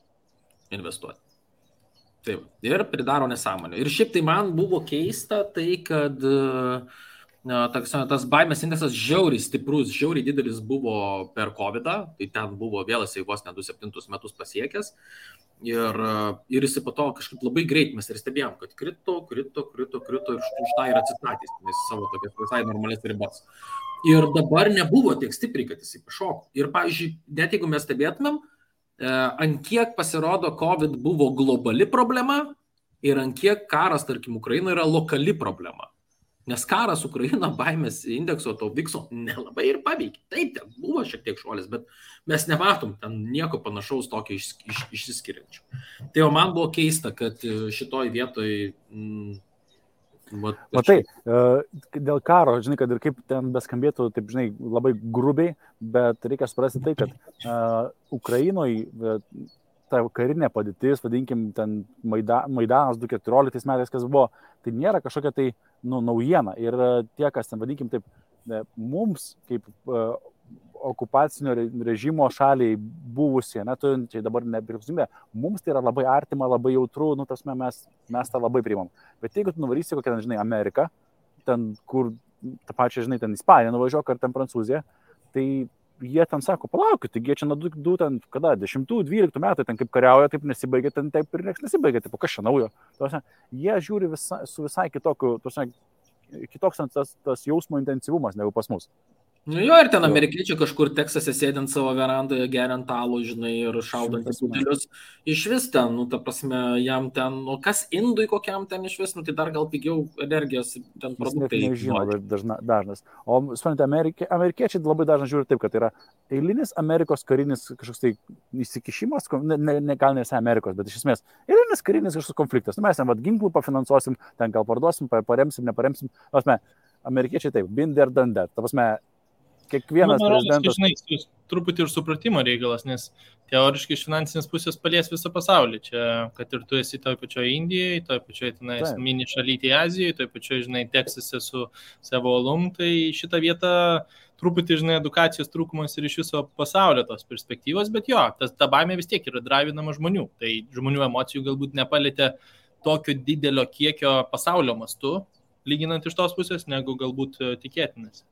investuoti. Taip, ir pridaro nesąmonę. Ir šiaip tai man buvo keista tai, kad tas baimės indeksas žiauriai stiprus, žiauriai didelis buvo per COVID-ą, tai ten buvo vėl jisai vos ne 27 metus pasiekęs. Ir jisai po to kažkaip labai greit mes ir stebėjom, kad krito ir už tą ir atsistatys, nes savo tokias visai normalės ribas. Ir dabar nebuvo tiek stipriai, kad jisai pašoko. Ir pavyzdžiui, net jeigu mes stebėtumėm, ant kiek pasirodo COVID buvo globali problema ir ant kiek karas, tarkim, Ukraina yra lokali problema. Nes karas Ukraina baimės indekso to vikso nelabai ir paveikė. Taip, ten buvo šiek tiek šuolis, bet mes nematom ten nieko panašaus tokio išsiskiriančio. Tai jau man buvo keista, kad šitoj vietoj... Matai, dėl karo, žinai, kad ir kaip ten beskambėtų, taip, žinai, labai grubiai, bet reikia suprasti tai, kad Ukrainoje ta karinė padėtis, vadinkim, ten Maidanas 2014 metais, kas buvo, tai nėra kažkokia tai naujiena. Ir tie, kas ten, vadinkim, taip, mums, kaip okupacinio režimo šaliai buvusie, turinčiai dabar nepriklausomybę, mums tai yra labai artima, labai jautru, mes tą labai priimam. Bet jeigu tu nuvarysi kokią, žinai, Ameriką, ten, kur tą pačią, žinai, ten Ispaniją nuvažiuok, ar ten Prancūziją, tai jie ten sako, palaukit, taigi jie čia nuo 10-12 metų ten kaip kariauja, taip nesibaigia, ten taip ir nieks nesibaigia, taip, kas čia naujo. Jie žiūri su visai kitoks tas jausmo intensyvumas negu pas mus. Nu jo, ir ten amerikiečiai kažkur Teksase sėdint savo verandoje, geriant alų, žinai, ir šaudant į putelius. Iš vis ten, ta prasme, jam ten, kas indui kokiam ten iš vis, tai dar gal pigiau energijos ten produktai. Jis nežino, dažnas. O, suprantate, amerikiečiai labai dažnai žiūri taip, kad yra eilinis Amerikos karinis kažkoks tai įsikišimas, gal nesai Amerikos, bet iš esmės eilinis karinis kažkoks konfliktas. Mes ten ginklų pafinansuosim, ten gal parduosim, paremsim, neparemsim. Amerikiečiai taip, been there, done that. Ta prasme, kiekvienas prezidentas... Žinai, truputį ir supratimo reikalas, nes teoriškai iš finansinės pusės palies visą pasaulį. Čia, kad ir tu esi toj pačioje Indijoje, toj pačioje mini šalytėje Azijoje, toj pačioje, žinai, Teksase su savo alum, tai šitą vietą truputį, žinai, edukacijos trūkumas ir iš viso pasaulio tos perspektyvos, bet jo, ta baimė vis tiek yra drivinama žmonių. Tai žmonių emocijų galbūt nepalėtė tokio didelio kiekio pasaulio mastu, lyginant iš tos pusės, negu galbūt tikėtinas.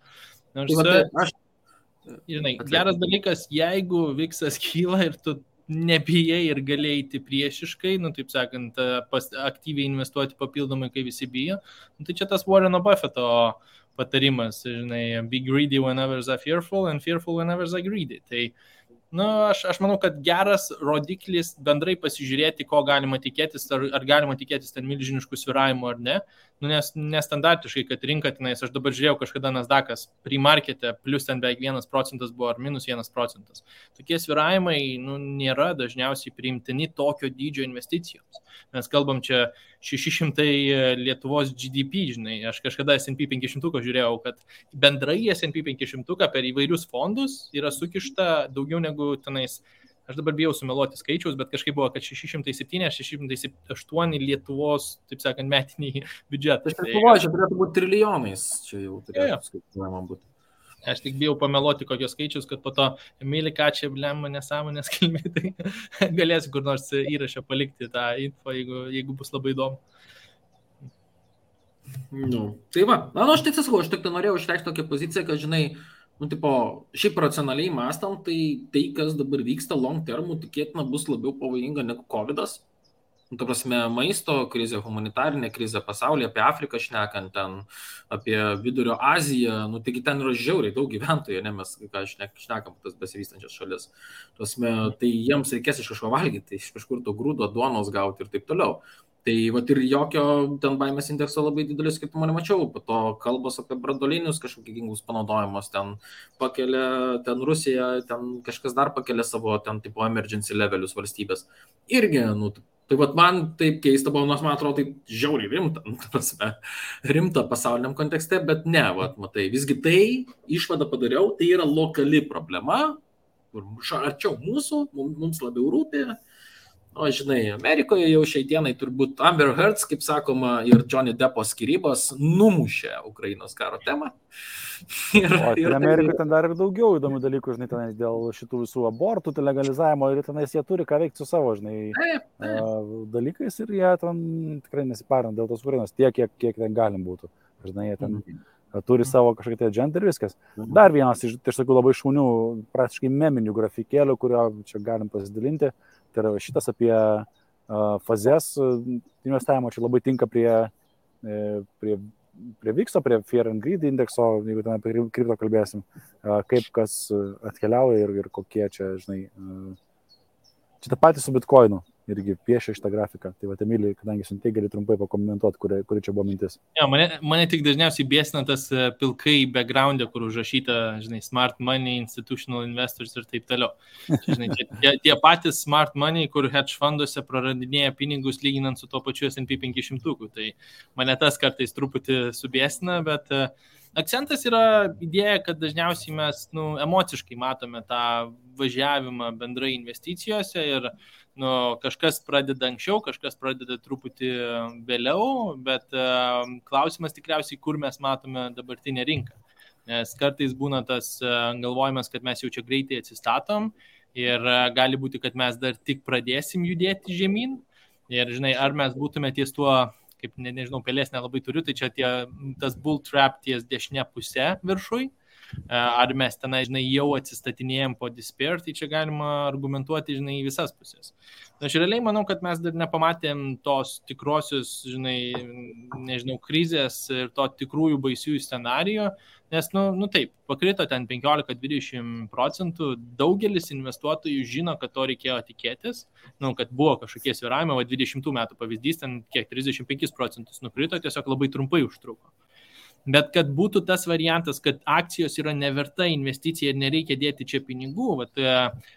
Žinai, geras dalykas, jeigu viksas kyla ir tu nebijai ir galėjai eiti priešiškai, taip sakant, aktyviai investuoti papildomai, kai visi bijo, tai čia tas Warreno Buffetto patarimas, žinai, be greedy whenever they're fearful and fearful whenever they're greedy. Tai aš manau, kad geras rodiklis bendrai pasižiūrėti, ko galima tikėtis, ar galima tikėtis ten milžiniškų svyravimų ar ne. Nes nestandartiškai, kad rinka tenais, aš dabar žiūrėjau kažkada Nasdaqas pre-markete, plus ten beveik 1% buvo ar minus 1%. Tokie svyravimai nėra dažniausiai priimtini tokio dydžio investicijoms. Mes kalbam čia 600 Lietuvos GDP, žinai, aš kažkada S&P 500 žiūrėjau, kad bendrai S&P 500 per įvairius fondus yra sukišta daugiau negu tenais, aš dabar bijau sumeluoti skaičiaus, bet kažkaip buvo, kad 607-608 Lietuvos, taip sakant, metiniai biudžetai. Aš galvoju, čia turėtų būti trilijonais, čia jau turėtų skaičiuojama būti. Aš tik bijau pameluoti kokios skaičius, kad po to Emilį Kačią blemą nesąmonės kalbė, tai galėsiu kur nors įrašę palikti tą info, jeigu bus labai įdomu. Tai va, aš tik sakau, aš tik norėjau išreikšti tokią poziciją, kad, žinai, šiaip racionaliai mąstant, tai kas dabar vyksta long termų, tikėtina bus labiau pavojinga negu COVID'as. Ta prasme, maisto krizė, humanitarinė krizė pasaulyje, apie Afriką šnekant, ten, apie Vidurio Aziją, taigi ten yra žiauriai daug gyventojų, ne mes, ką šnekam, tas besivystančias šalis. Prasme, tai jiems reikės iš kažko valgyti, iš kažkur to grūdo, duonos gauti ir taip toliau. Tai vat ir jokio ten baimės indekso labai didelis skirtumo nemačiau, po to kalbos apie branduolinius kažkokius ginklus panaudojimus, ten pakelia, ten Rusija, ten kažkas dar pakelia savo ten tipo emergency levelius valstybės. Irgi, tai vat man taip keista buvo, nors man atrodo tai žiauriai rimta pasauliniam kontekste, bet ne, vat matai, visgi tai išvadą padariau, tai yra lokali problema, kur arčiau mūsų, mums labiau rūpi. O žinai, Amerikoje jau šiai dienai turbūt Amber Heard, kaip sakoma, ir Johnny Deppo skyrybos numušė Ukrainos karo temą. Ir Amerikoje ten dar ir daugiau įdomių dalykų, žinai, tenais dėl šitų visų abortų, legalizavimo ir tenais jie turi ką veikti su savo, žinai, dalykais ir jie ten tikrai nesiparina dėl tos Ukrainos tiek, kiek ten galim būtų. Žinai, jie ten turi savo kažkokią agentą ir viskas. Dar vienas iš tokių labai šaunių, praktiškai meminių grafikėlių, kurio čia galim pasidalinti. Tai yra šitas apie fazes investavimo, čia labai tinka prie VIX, prie Fear and Greed indekso, jeigu ten apie kripto kalbėsim, kaip kas atkeliauja ir kokie čia, žinai, čia tą patį su Bitcoinu irgi piešia šitą grafiką. Tai va, Emilija, kadangi siuntai, gali trumpai pakomentuoti, kuri čia buvo mintis. Ja, mane tik dažniausiai biesina tas pilkai background'e, kur užrašyta, žinai, smart money, institutional investors ir taip toliau. Čia, žinai, tie patys smart money, kur hedge fonduose praradinėja pinigus lyginant su to pačiu S&P 500. Tai mane tas kartais truputį subiesina, bet akcentas yra idėja, kad dažniausiai mes emociškai matome tą važiavimą bendrai investicijose ir kažkas pradeda anksčiau, kažkas pradeda truputį vėliau, bet klausimas tikriausiai, kur mes matome dabartinę rinką. Nes kartais būna tas galvojimas, kad mes jau čia greitai atsistatom ir gali būti, kad mes dar tik pradėsim judėti žemyn. Ir žinai, ar mes būtume ties tuo, kaip nežinau, pelės nelabai turiu, tai čia tas bull trap ties dešinė pusė viršui. Ar mes tenai, žinai, jau atsistatinėjom po despair, tai čia galima argumentuoti, žinai, į visas pusės. Aš realiai manau, kad mes dar nepamatėm tos tikrosios, žinai, nežinau, krizės ir to tikrųjų baisiųjų scenarijų, nes, taip, pakrito ten 15-20%, daugelis investuotojų žino, kad to reikėjo tikėtis, kad buvo kažkokie svyravimai, 20 metų pavyzdys, ten kiek 35% nukrito, tiesiog labai trumpai užtruko. Bet kad būtų tas variantas, kad akcijos yra neverta investicija ir nereikia dėti čia pinigų,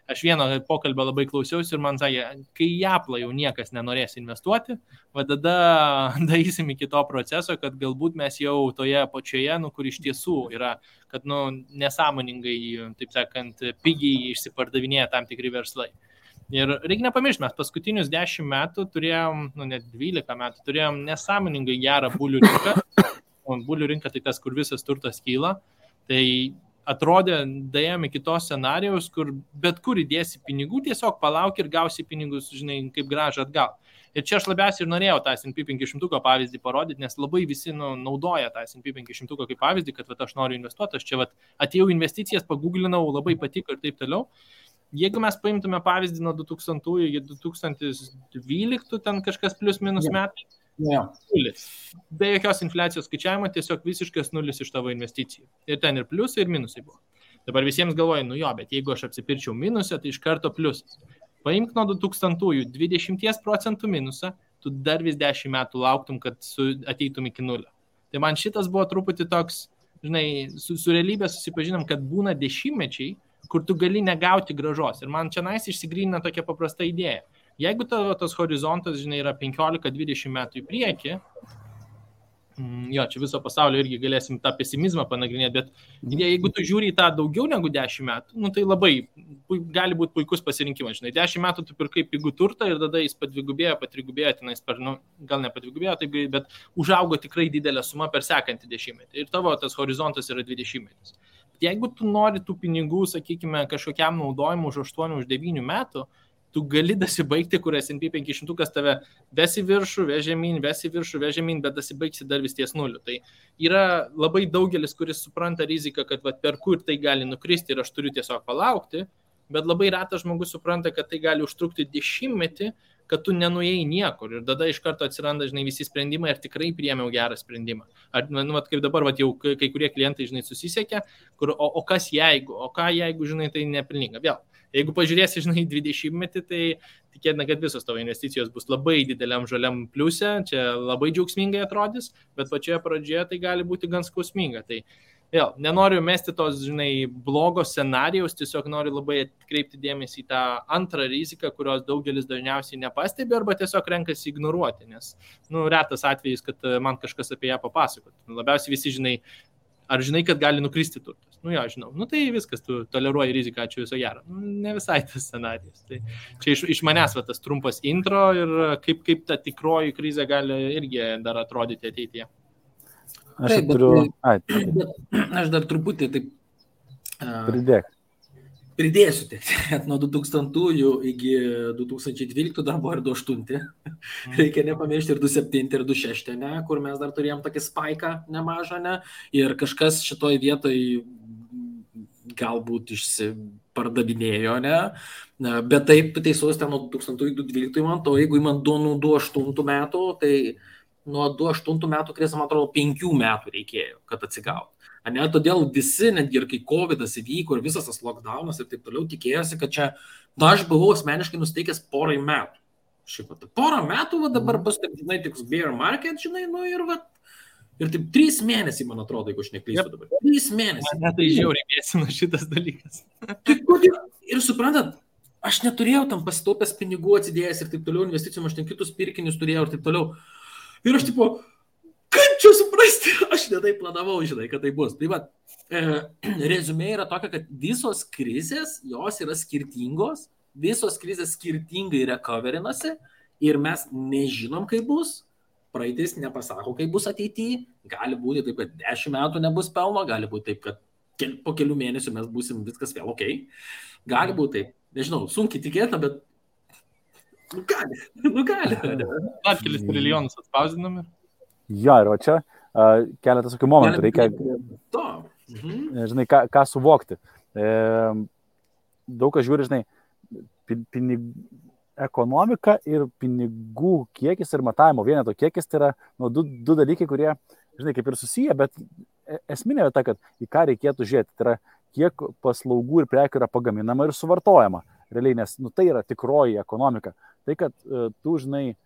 aš vieno pokalbio labai klausiausi ir man sakė, kai į Apple jau niekas nenorės investuoti, tada darysim iki to proceso, kad galbūt mes jau toje pačioje, kur iš tiesų yra, kad nesąmoningai, taip sakant, pigiai išsipardavinėja tam tikri verslai. Ir reikia nepamiršti, mes paskutinius 10 metų turėjom, net 12 metų turėjom nesąmoningai gerą bulių rinką. Bulių rinka tai tas, kur visas turtas kyla, tai atrodė, dėjom iki tos scenarijaus, kur bet kur įdėsi pinigų, tiesiog palauk ir gausi pinigus, žinai, kaip grąžą atgal. Ir čia aš labiausiai ir norėjau tą S&P 500 pavyzdį parodyti, nes labai visi naudoja tą S&P 500 kaip pavyzdį, kad aš noriu investuoti, aš čia atėjau investicijas, paguglinau, labai patiko ir taip toliau. Jeigu mes paimtume pavyzdį nuo 2000 iki 2012, ten kažkas plius minus metai, nulis. Be jokios infliacijos skaičiavimo, tiesiog visiškas nulis iš tavo investicijų. Ir ten ir pliusai, ir minusai buvo. Dabar visiems galvoja, bet jeigu aš apsipirčiau minusą, tai iš karto pliusas. Paimk nuo 2000 20% minusą, tu dar vis 10 metų lauktum, kad ateitum iki nulio. Tai man šitas buvo truputį toks, žinai, su realybė susipažinom, kad būna dešimtmečiai, kur tu gali negauti grąžos. Ir man čia išsigrynina tokia paprasta idėja. Jeigu tavo tas horizontas, žinai, yra 15-20 metų į priekį, čia viso pasaulio irgi galėsim tą pesimizmą panagrinėti, bet jeigu tu žiūri į tą daugiau negu 10 metų, tai labai gali būti puikus pasirinkimas. Žinai, 10 metų tu pirkai pigų turtą ir tada jis padvigubėjo, patrigubėjo, tenais gal ne padvigubėjo, bet užaugo tikrai didelę sumą per sekantį 10-metį. Ir tavo tas horizontas yra 20 metais. Jeigu tu nori tų pinigų, sakykime, kažkokiam naudojimui už 8-9 metų, tu gali dasibaigti, kur S&P 500 tave vesi viršų, vežemyn, bet dasibaigsi dar vis ties nuliu. Tai yra labai daugelis, kuris supranta riziką, kad per kur tai gali nukristi ir aš turiu tiesiog palaukti, bet labai retas žmogus supranta, kad tai gali užtrukti 10 metį, kad tu nenuėjai niekur ir tada iš karto atsiranda, žinai, visi sprendimai, ar tikrai priėmiau gerą sprendimą. Ar, kaip dabar, jau kai kurie klientai, žinai, susisiekia, o kas jeigu, ką jeigu, žinai, tai nepelninga. Vėl, jeigu pažiūrėsi, žinai, 20-metį, tai tikėtina, kad visos tavo investicijos bus labai dideliam žaliam pliuse, čia labai džiaugsmingai atrodys, bet pačioje pradžioje tai gali būti gan skausminga. Tai vėl, nenoriu mesti tos, žinai, blogos scenarijaus, tiesiog noriu labai atkreipti dėmesį į tą antrą riziką, kurios daugelis dažniausiai nepastebi arba tiesiog renkasi ignoruoti, nes, retas atvejis, kad man kažkas apie ją papasakot. Labiausiai visi, žinai, ar žinai, kad gali nukristi turtas? Jo, žinau. Tai viskas, tu toleruoji riziką, ačiū viso gero. Ne visai tas scenarijus. Tai čia iš manęs tas trumpas intro ir kaip ta tikroji krizė gali irgi dar atrodyti ateityje. Aš dar truputį taip pridėsiu. Nuo 2000 iki 2012 dar buvo ir 2008. Reikia nepamiršti ir 2007 ir 2006, ne, kur mes dar turėjom tokį spaiką nemažą, ne, ir kažkas šitoj vietoj galbūt išsipardavinėjo, ne, bet taip, tu teisus, ten nuo 2012 man to, jeigu man nuo 2008 metų, tai nuo 2008 metų krizės, man atrodo, 5 metų reikėjo, kad atsigautų. Ne, todėl visi, netgi ir kai COVID'as įvyko ir visas tas lockdownas ir taip toliau, tikėjosi, kad čia, aš buvau asmeniškai nusteikęs porai metų. Šiaip, porą metų, dabar bus, taip, žinai, tiks bear market, žinai, ir taip 3 mėnesiai, man atrodo, jeigu aš neklystu dabar. 3 mėnesiai. Man tai žiauriai mėsina šitas dalykas. Ir suprantat, aš neturėjau tam pasitaupęs pinigų atsidėjęs ir taip toliau, investicijom, aš ten kitus pirkinius turėjau ir taip toliau. Ir aš tipo, kaip čia suprasti, aš netai planavau, žinai, kad tai bus. Tai va, rezumė yra tokia, kad visos krizės, jos yra skirtingos, visos krizės skirtingai recoverinasi ir mes nežinom, kaip bus. Praeitis nepasako, kaip bus ateityje. Gali būti taip, kad 10 metų nebus pelno, gali būti taip, kad po kelių mėnesių mes būsim viskas vėl ok. Gali būti taip, nežinau, sunkiai tikėta, bet gali. Dar kelis trilijonus atspausdinami. Jo, ir čia keletas tokių momentų reikia, žinai, ką suvokti. Daug kas žiūri, žinai, ekonomika ir pinigų kiekis ir matavimo vieneto kiekis tai yra du dalykai, kurie, žinai, kaip ir susiję, bet esminė vieta, kad į ką reikėtų žiūrėti, tai yra kiek paslaugų ir prekių yra pagaminama ir suvartojama. Realiai, nes tai yra tikroji ekonomika. Tai, kad tu, žinai,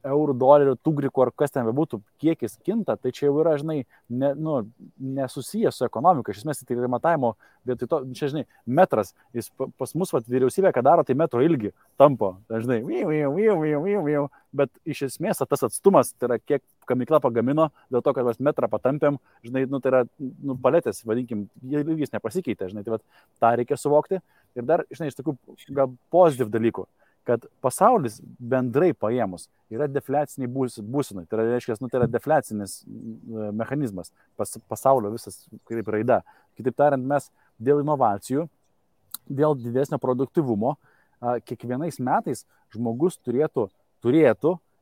eurų, dolerių, tugrikų ar kas ten bebūtų, kiekis kinta, tai čia jau yra, žinai, nesusijęs su ekonomika. Iš esmės, tai yra matavimo, bet to, čia, žinai, metras, jis pas mus vyriausybė, ką daro, tai metro ilgi tampo, žinai, bet iš esmės tas atstumas, tai yra kiek gamykla pagamino, dėl to, kad mes metrą patampėm, žinai, tai yra paletės, vadinkim, ilgis nepasikeitė, žinai, tai tą reikia suvokti. Ir dar, žinai, iš tokių gal pozityv dalykų, kad pasaulis bendrai paėmus yra defliaciniai būsenai. Tai reiškia, tai yra defliacinis mechanizmas, pasaulio visas kaip raida. Kitaip tariant, mes dėl inovacijų, dėl didesnio produktyvumo, kiekvienais metais žmogus turėtų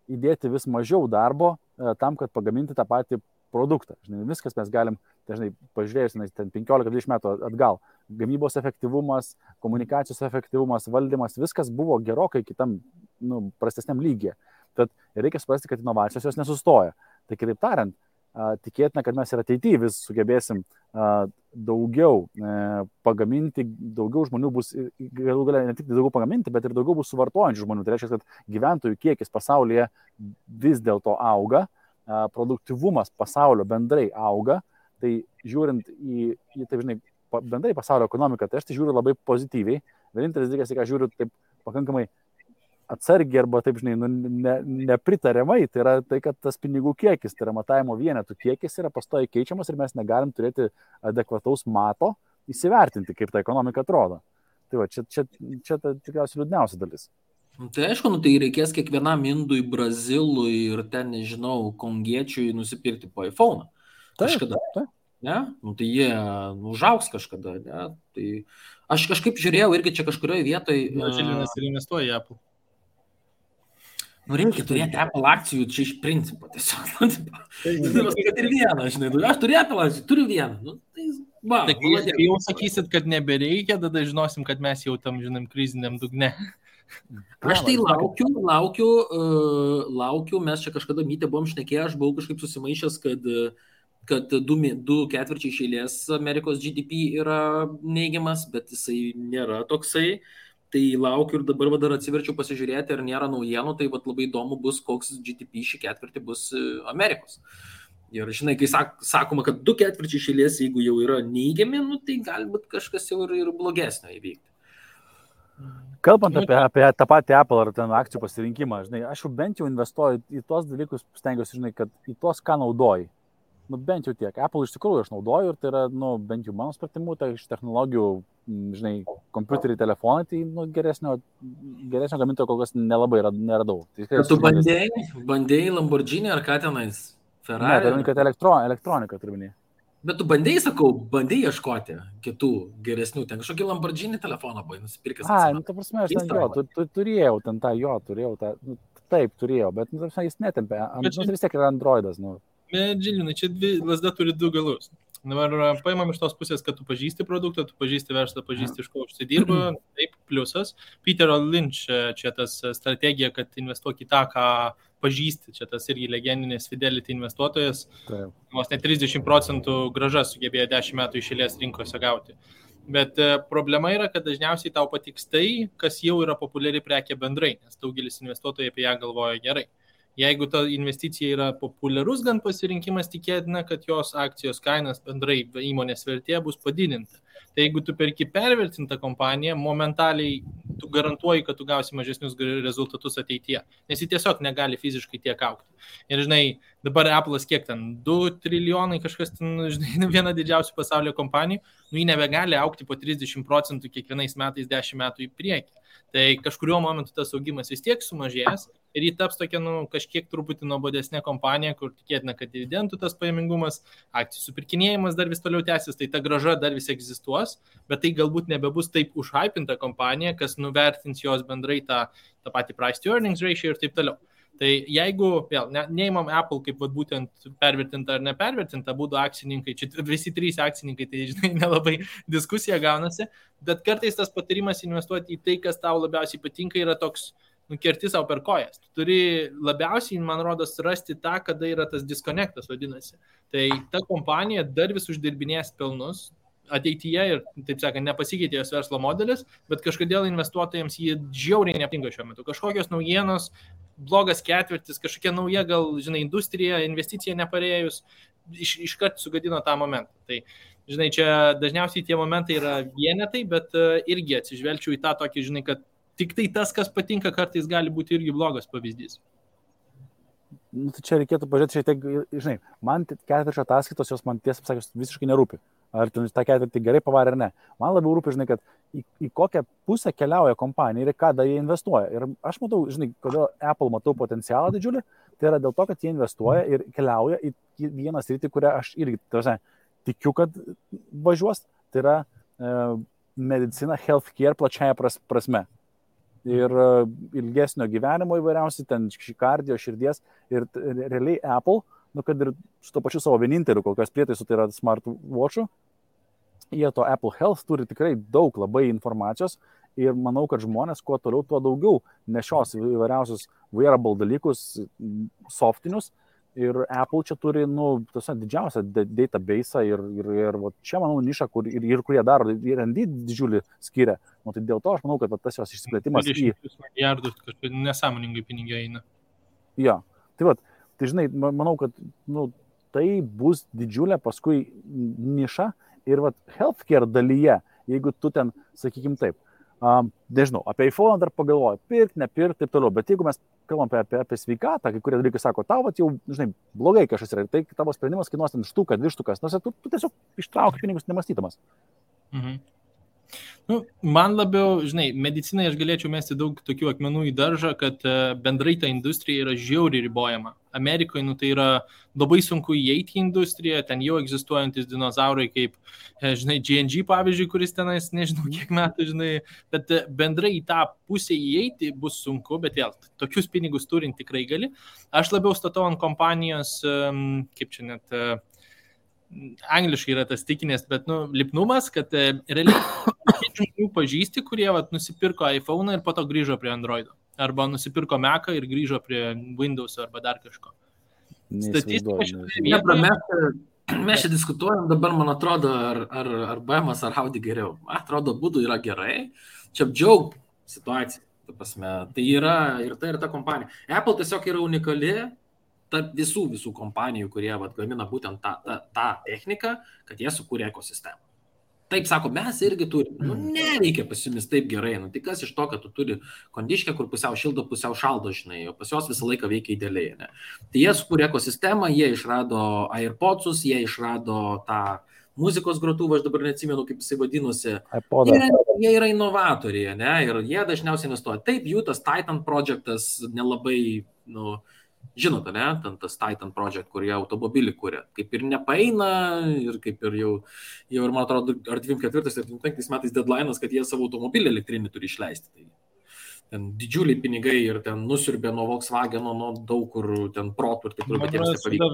įdėti vis mažiau darbo tam, kad pagaminti tą patį produktą. Žinai, viskas mes galim, dažnai pažiūrėjus, 15-20 metų atgal, gamybos efektyvumas, komunikacijos efektyvumas, valdymas, viskas buvo gerokai kitam, prastesniam lygyje. Tad reikia suprasti, kad inovacijos jos nesustoja. Tai kitaip tariant, tikėtina, kad mes ir ateityje vis sugebėsim daugiau pagaminti, daugiau žmonių bus, galų galia ne tik daugiau pagaminti, bet ir daugiau bus suvartojančių žmonių. Tai reiškia, kad gyventojų kiekis pasaulyje vis dėlto auga, produktyvumas pasaulio bendrai auga, tai žiūrint į taip, žinai, bendrai pasaulio ekonomiką, tai aš tai žiūriu labai pozityviai. Vienintelis dalykas, ką žiūriu taip pakankamai atsargiai arba taip, žinai, nepritariamai, tai yra tai, kad tas pinigų kiekis, tai yra matavimo vienetų kiekis yra pastoviai keičiamas ir mes negalim turėti adekvataus mato įsivertinti, kaip ta ekonomika atrodo. Tai va, čia tikriausiai liūdniausia dalis. Tai aišku, tai reikės kiekvienam indui, brazilui ir ten, nežinau, kongiečiui nusipirkti po iPhone. Kažkada. Ne? Tai jie užaugs kažkada. Ne? Tai aš kažkaip žiūrėjau irgi čia kažkurioje vietoje. Žilinas ir investuoja į Apple. Reikia turėti Apple akcijų čia iš principo tiesiog. Kad ir vieną, žinai. Aš turiu Apple akcijų, turiu vieną. Tai jau sakysit, kad nebereikia, tada žinosim, kad mes jau tam, žinom, kriziniam dugne. Aš tai laukiu, mes čia kažkada mytė buvom šnekėję, aš buvau kažkaip susimaišęs, kad 2 ketvirčiai iš eilės Amerikos GDP yra neigiamas, bet jisai nėra toksai. Tai laukiu ir dabar dar atsiverčiau pasižiūrėti, ar nėra naujienų, tai labai įdomu bus, koks GDP šį ketvirtį bus Amerikos. Ir žinai, kai sakoma, kad 2 ketvirčiai iš eilės, jeigu jau yra neigiami, tai galbūt kažkas jau ir blogesnio įvykti. Kalbant apie tą patį Apple ar ten akcijų pasirinkimą, žinai, aš jau bent jau investuoju į tos dalykus, stengiuosi, žinai, kad į tos, ką naudoji. Bent jau tiek. Apple iš tikrųjų aš naudoju ir tai yra, bent jau mano supratimu, tai iš technologijų, žinai, kompiuteriai, telefonai, tai geresnio gamintojo kol kas nelabai neradau. Tai tu bandėjai Lamborghini ar ką tenais? Ferrari? Ne, tai kad elektronika turminė. Bet tu bandėjai ieškoti kitų geresnių, ten kažkokį Lamborghini telefoną buvai nusipirkęs. Ta prasme, aš ten turėjau tą, taip turėjau, bet jis netempė, vis tiek yra Androidas, Bet Žilinai, čia lasda turi 2 galus. Dabar paimam iš tos pusės, kad tu pažįsti produktą, tu pažįsti verslą, pažįsti iš ko užsidirba, taip, pliusas. Peterio Lynch čia tas strategija, kad investuok į tą, ką pažįsti, čia tas irgi legendinės Fidelity investuotojas, vos net 30% grąža sugebėjo 10 metų iš eilės rinkose gauti. Bet problema yra, kad dažniausiai tau patiks tai, kas jau yra populiari prekė bendrai, nes daugelis investuotojai apie ją galvoja gerai. Jeigu ta investicija yra populiarus gan pasirinkimas, tikėtina, kad jos akcijos kainas bendrai įmonės vertė bus padidinta. Tai jeigu tu perki pervertintą kompaniją, momentaliai tu garantuoji, kad tu gausi mažesnius rezultatus ateityje, nes ji tiesiog negali fiziškai tiek augti. Ir žinai, dabar Apple'as kiek ten, 2 trilijonai kažkas ten, žinai, viena didžiausių pasaulio kompanijų, ji nebegali augti po 30% kiekvienais metais 10 metų į priekį. Tai kažkuriuo momentu tas augimas vis tiek sumažės ir jį taps tokia, kažkiek truputį nuobodesnė kompanija, kur tikėtina, kad dividendų tas pajamingumas, akcijų supirkinėjimas dar vis toliau tęsis, tai ta grąža dar vis egzistuos, bet tai galbūt nebebus taip užhypinta kompanija, kas nuvertins jos bendrai tą patį price to earnings ratio ir taip toliau. Tai jeigu, vėl, neimam Apple kaip būtent pervertinta ar nepervertinta, būtų akcininkai, čia visi 3 akcininkai, tai žinai, nelabai diskusija gaunasi, bet kartais tas patarimas investuoti į tai, kas tau labiausiai patinka, yra toks, kerti savo per kojas. Tu turi labiausiai, man rodos, rasti tą, kada yra tas disconnectas vadinasi. Tai ta kompanija dar vis uždirbinės pelnus ateityje ir, taip sakant, nepasikeitė jos verslo modelis, bet kažkodėl investuotojams jį žiauriai nepatinka šiuo metu. Kažkokios naujienos, blogas ketvirtis, kažkokia nauja, gal, žinai, industrija, investicija neparėjus, iškart sugadino tą momentą. Tai, žinai, čia dažniausiai tie momentai yra vienetai, bet irgi atsižvelgčiau į tą tokį, žinai, kad tik tai tas, kas patinka, kartais gali būti irgi blogas pavyzdys. Tai čia reikėtų pažiūrėti šiek tiek, žinai, man ketvirčio ataskaitos, jos man tiesą pasakius visiškai nerūpi. Ar ten tą ketvirtį gerai pavarė ar ne. Man labiau rūpi, žinai, kad į kokią pusę keliauja kompanija ir kada jie investuoja. Ir aš matau, žinai, kodėl Apple matau potencialą didžiulį, tai yra dėl to, kad jie investuoja ir keliauja į vieną sritį, kurią aš irgi tikiu, kad važiuos, tai yra medicina, healthcare plačiaja prasme. Ir ilgesnio gyvenimo įvairiausiai, ten kardio, širdies ir realiai Apple, kad ir su to pačiu savo vieninteliu, kol kas prietaisų, tai yra smartwatch'ų, jie to Apple Health turi tikrai daug labai informacijos ir manau, kad žmonės kuo toliau, tuo daugiau nešios įvairiausius wearable dalykus, softinius ir Apple čia turi, didžiausią database ir čia, manau, nišą, kur jie daro, R&D didžiulį skiria. Tai dėl to aš manau, kad tas jos išsiplėtimas 20 milijardų kažkaip nesąmoningai pinigai eina. Jo, tai žinai, manau, kad tai bus didžiulė paskui niša ir healthcare dalyje, jeigu tu ten, sakykim taip, nežinau, apie iPhone dar pagalvoju, nepirk, taip toliau, bet jeigu mes kalbam apie sveikatą, kai kurie dalykai sako, tau jau, žinai, blogai kažkas yra ir tai tavo sprendimas kainuos ten štuką, 2 štukas, tu tiesiog ištrauki pinigus nemastydamas. Mhm. Man labiau, žinai, medicinai aš galėčiau mesti daug tokių akmenų į daržą, kad bendrai ta industrija yra žiauriai ribojama. Amerikoje tai yra labai sunku įeiti į industriją, ten jau egzistuojantis dinozaurai kaip, žinai, G&G pavyzdžiui, kuris tenais, nežinau kiek metų, žinai, bet bendrai į tą pusę įeiti bus sunku, bet vėl, tokius pinigus turint tikrai gali. Aš labiau statau ant kompanijos, kaip čia net... angliškai yra tas tikinės, bet, lipnumas, kad realiai žmonių pažįsti, kurie nusipirko iPhone ir po to grįžo prie Androido. Arba nusipirko Mac'ą ir grįžo prie Windows arba dar kažko. Statistika mes čia diskutuojam dabar, man atrodo, ar BM'as, ar Audi geriau. Man atrodo, būdų yra gerai. Čia apdžiaug situacija. Tai yra ir ta kompanija. Apple tiesiog yra unikali tarp visų kompanijų, kurie gamina būtent tą techniką, kad jie sukūrė ekosistemą. Taip sako, mes irgi turime. Nereikia pas jumis taip gerai. Tai kas iš to, kad tu turi kondiškę, kur pusiau šildo, pusiau šaldo, žinai, o pas jos visą laiką veikia idealiai. Ne? Tai jie sukūrė ekosistemą, jie išrado AirPodsus, jie išrado tą muzikos grotuvą, aš dabar neatsimenu, kaip jisai vadinosi. Jie yra inovatoriai, ne? Ir jie dažniausiai investuoja. Taip, jų tas Titan projektas nelabai, žinote, ne, tas Titan Project, kur jie automobilį kūrė, kaip ir nepaeina ir kaip ir jau ir man atrodo, ar 24 ar 25 metais deadline'as, kad jie savo automobilį elektrinį turi išleisti. Tai ten didžiuliai pinigai ir ten nusiurbė nuo Volkswageno, nuo daug kur ten protų ir taip toliau, bet jiems nepavyko.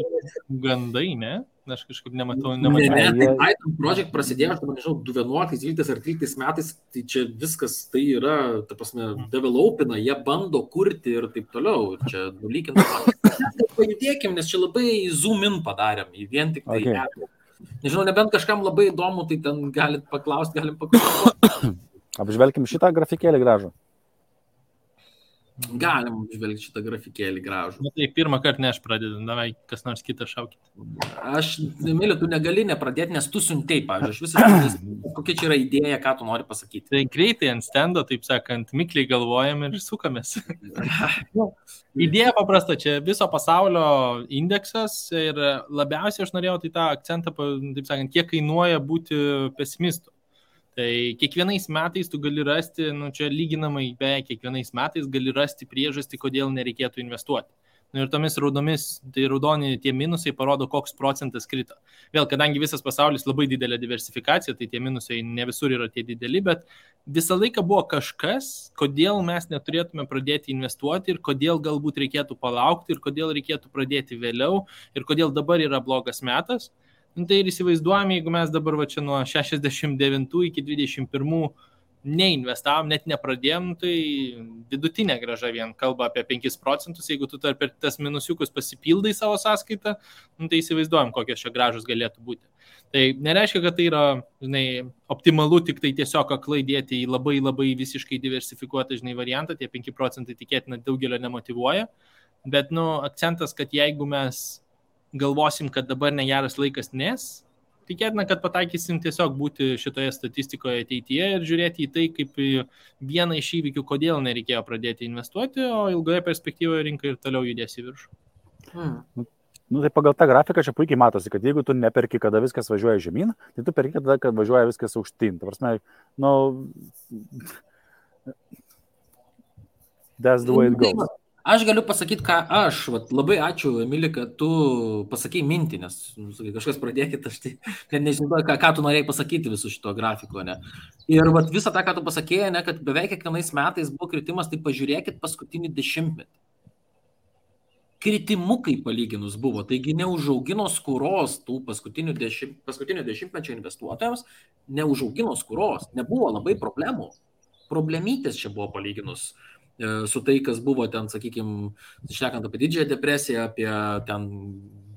Gandai, ne? Aš kažkaip nematau. Tai Titan Project prasidėjo, aš nežinau, 2011, 2012 ar 2013 metais, tai čia viskas tai yra, ta prasme, developina, jie bando kurti ir taip toliau. Ir čia nulykinta. Pajudėkim, nes čia labai zoom in padarėm, į vien tik tai. Okay. Nežinau, nebent kažkam labai įdomu, tai ten galim paklausti. Apžvelkim šitą grafikėlį gražų. Galim žvelgti šitą grafikėlį gražų. Tai pirmą kartą ne aš pradedu, davai kas nors kitą šaukit. Aš, Emilija, tu negali nepradėti, nes tu siuntei, pavyzdžiui, aš visiškai, kokia čia yra idėja, ką tu nori pasakyti. Tai greitai ant stendo, taip sakant, mikliai galvojam ir sukamės. Idėja paprasta, čia viso pasaulio indeksas ir labiausiai aš norėjau tai tą akcentą, taip sakant, kiek kainuoja būti pesimistu. Tai kiekvienais metais tu gali rasti, čia lyginamai beveik kiekvienais metais gali rasti priežastį, kodėl nereikėtų investuoti. Ir tomis raudoni tie minusai parodo, koks procentas krito. Vėl, kadangi visas pasaulis labai didelė diversifikacija, tai tie minusai ne visur yra tie dideli, bet visą laiką buvo kažkas, kodėl mes neturėtume pradėti investuoti ir kodėl galbūt reikėtų palaukti ir kodėl reikėtų pradėti vėliau ir kodėl dabar yra blogas metas. Tai ir įsivaizduojame, jeigu mes dabar čia nuo 69 iki 21 neinvestavom, net nepradėjom, tai vidutinė grąža vien kalba apie 5%, jeigu tu per tas minusiukus pasipildai savo sąskaitą, tai įsivaizduojam, kokios čia grąžos galėtų būti. Tai nereiškia, kad tai yra, optimalu tik tai tiesiog aklai dėti į labai labai visiškai diversifikuotą, variantą, tie 5% tikėtina daugelio nemotyvuoja, bet, akcentas, kad jeigu mes galvosim, kad dabar negeras laikas, nes tikėtina, kad pataikysim tiesiog būti šitoje statistikoje ateityje ir žiūrėti į tai kaip vieną iš įvykių, kodėl nereikėjo pradėti investuoti, o ilgoje perspektyvoje rinka ir toliau judės į viršų. Tai pagal tą grafiką čia puikiai matosi, kad jeigu tu neperki, kada viskas važiuoja žemyn, tai tu perki tada, kad važiuoja viskas aukštyn. Ta prasme, that's the way it goes. Aš galiu pasakyti, ką aš, labai ačiū, Emilija, kad tu pasakei mintį, nes kažkas pradėkit, aš tai net nežinau, ką tu norėjai pasakyti visų šito grafiko, ne. Ir visą tą, ką tu pasakėjai, ne, kad beveik kiekvienais metais buvo kritimas, tai pažiūrėkit paskutinį 10-metį. Kritimukai palyginus buvo, taigi neužaugino skuros tų paskutinio 10-mečio investuotojams, neužaugino skuros, nebuvo labai problemų. Problemytės čia buvo palyginus su tai, kas buvo ten, sakykime, šnekant apie didžiąją depresiją, apie ten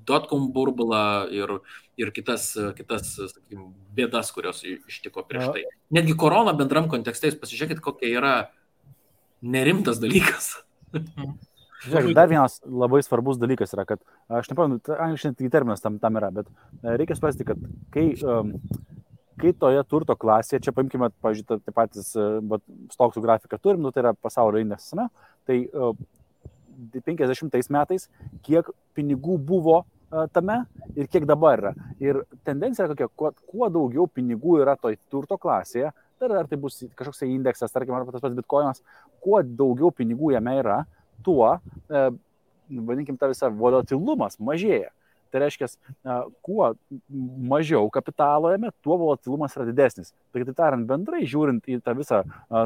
dotcom burbulą ir kitas sakykime, bėdas, kurios ištiko prieš tai. Netgi korona bendram kontekste, jūs pasižiūrėkit, kokia yra nerimtas dalykas. Žiūrėk, dar vienas labai svarbus dalykas yra, kad, aš nepamenu, angliškai terminas tam yra, bet reikia suprasti, kad kai toje turto klasėje, čia paimkime, pažiūrėjau, tai patys stoksų grafiką turim, tai yra pasaulio indeksas, tai 50 metais, kiek pinigų buvo tame ir kiek dabar yra. Ir tendencija yra kokia, kuo daugiau pinigų yra toj turto klasėje, ar tai bus kažkoks indeksas, tarkim, ar tas pats bitkoinas, kuo daugiau pinigų jame yra, tuo, vadinkim, ta visa volatilumas mažėja. Tai reiškia, kuo mažiau kapitalo jame, tuo volatilumas yra didesnis. Tai tariant, bendrai žiūrint į tą visą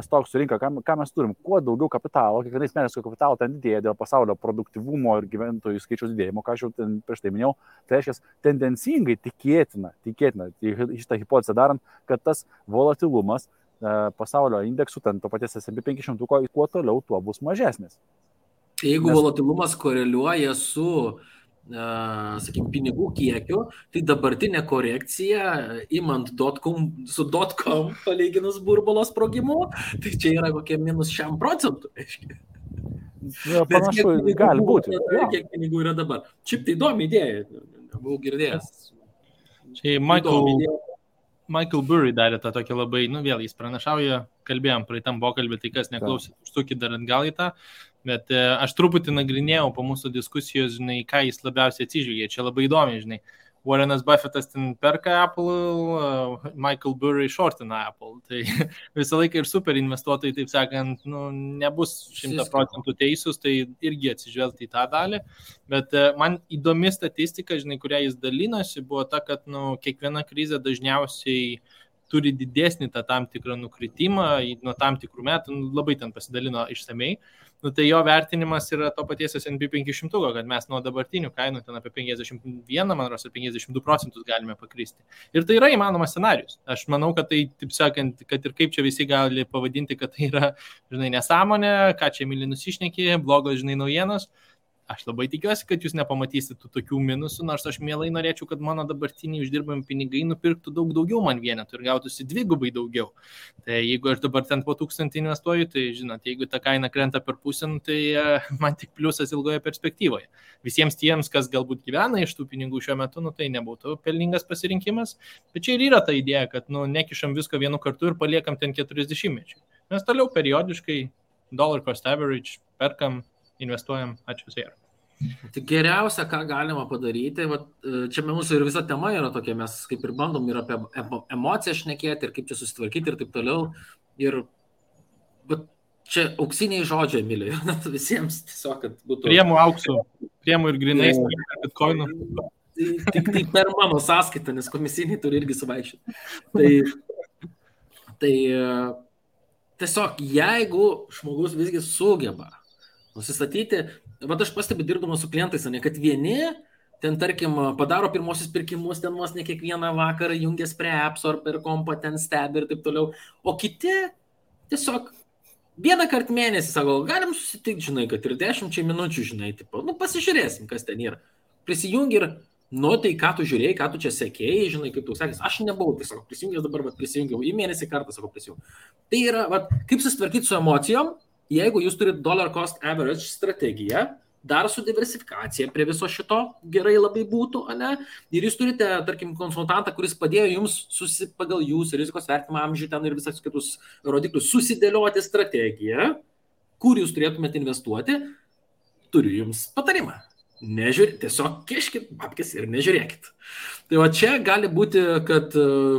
stoksų rinką, ką mes turim, kuo daugiau kapitalo, kiekvienais metais kapitalo ten didėja dėl pasaulio produktyvumo ir gyventojų skaičiaus didėjimo, ką aš jau prieš tai minėjau, tai reiškia, tendencingai tikėtina, šitą hipotezę darant, kad tas volatilumas pasaulio indeksų, ten to paties S&P 500, kuo toliau, tuo bus mažesnis. Jeigu volatilumas koreliuoja su, sakykime, pinigų kiekiu, tai dabartinė korekcija, imant su .com palyginus burbulo sprogimu, tai čia yra kokie minus 100%. Panašu, gali būti. Kiek pinigų yra dabar. Šiaip tai įdomi idėja, buvau girdėjęs. Čia Michael Burry darė tą tokį labai, vėl jis pranašauja, kalbėjom praeitam pokalbį, tai kas neklausė, užsukit dar atgal į tą, bet aš truputį nagrinėjau po mūsų diskusijos, žinai, ką jis labiausiai atsižvelgia, čia labai įdomi, žinai, Warrenas Buffettas ten perka Apple, Michael Burry shortina Apple, tai visą laiką ir super investuotojai, taip sakant, nebus 100% teisūs, tai irgi atsižvelgti į tą dalį, bet man įdomi statistika, žinai, kurią jis dalinosi, buvo ta, kad kiekviena krizė dažniausiai turi didesnį tą tam tikrą nukritimą nuo tam tikrų metų, labai ten pasidalino išsamei. Tai jo vertinimas yra to paties S&P 500, kad mes nuo dabartinių kainų ten apie 51, man rodos, 52% galime pakristi. Ir tai yra įmanomas scenarius. Aš manau, kad tai, taip sakant, kad ir kaip čia visi gali pavadinti, kad tai yra, žinai, nesąmonė, ką čia myli nusišnekė, blogos, žinai, naujienos. Aš labai tikiuosi, kad jūs nepamatysit tų tokių minusų, nors aš mielai norėčiau, kad mano dabartiniai uždirbami pinigai nupirktų daug daugiau man vienetų ir gautųsi dvigubai daugiau. Tai jeigu aš dabar ten po 1000 investuoju, tai žinot, jeigu ta kaina krenta per pusę, tai man tik pliusas ilgoje perspektyvoje. Visiems tiems, kas galbūt gyvena iš tų pinigų šiuo metu, tai nebūtų pelningas pasirinkimas. Bet čia ir yra ta idėja, kad nekišam visko vienu kartu ir paliekam ten 40 mečių. Mes toliau periodiškai dollar cost average perkam, investuojam, ačiū visai. Tai geriausia, ką galima padaryti, čia mūsų ir visa tema yra tokia, mes kaip ir bandom ir apie emociją šnekėti, ir kaip čia susitvarkyti ir taip toliau. Bet čia auksiniai žodžiai, Emilija, visiems tiesiog, kad būtų... Priemu auksų, priemu ir grinais, bitcoinų. Tik per mano sąskaitą, nes komisiniai turi irgi suvaikščioti. Tai tiesiog, jeigu žmogus visgi sugeba nusistatyti, bet aš pastebiu dirbdamas su klientais, kad vieni ten, tarkim, padaro pirmosius pirkimus, ten vos ne kiekvieną vakarą jungias prie apps ar per kompą ten stebi ir taip toliau, o kiti tiesiog vieną kartą mėnesį sako, galim susitikti, žinai, kad ir 10 minučių, žinai, tipo, pasižiūrėsim, kas ten yra. Prisijungi ir, tai ką tu žiūrėjai, ką tu čia sekėjai, žinai, kaip tu sakys, aš nebuvau, tai sako, prisijungęs dabar, prisijungiau, į mėnesį kartą, sako, prisijungiau. Tai yra, kaip susitvarkyti su emocijom, jeigu jūs turite dollar cost average strategiją, dar su diversifikacija prie viso šito gerai labai būtų, ane? Ir jūs turite, tarkim, konsultantą, kuris padėjo jums pagal jūsų rizikos vertinimą amžių ten ir visas kitus rodiklius susidėlioti strategiją, kur jūs turėtumėte investuoti, turiu jums patarimą. Tiesiog kiškit babkes ir nežiūrėkit. Tai čia gali būti, kad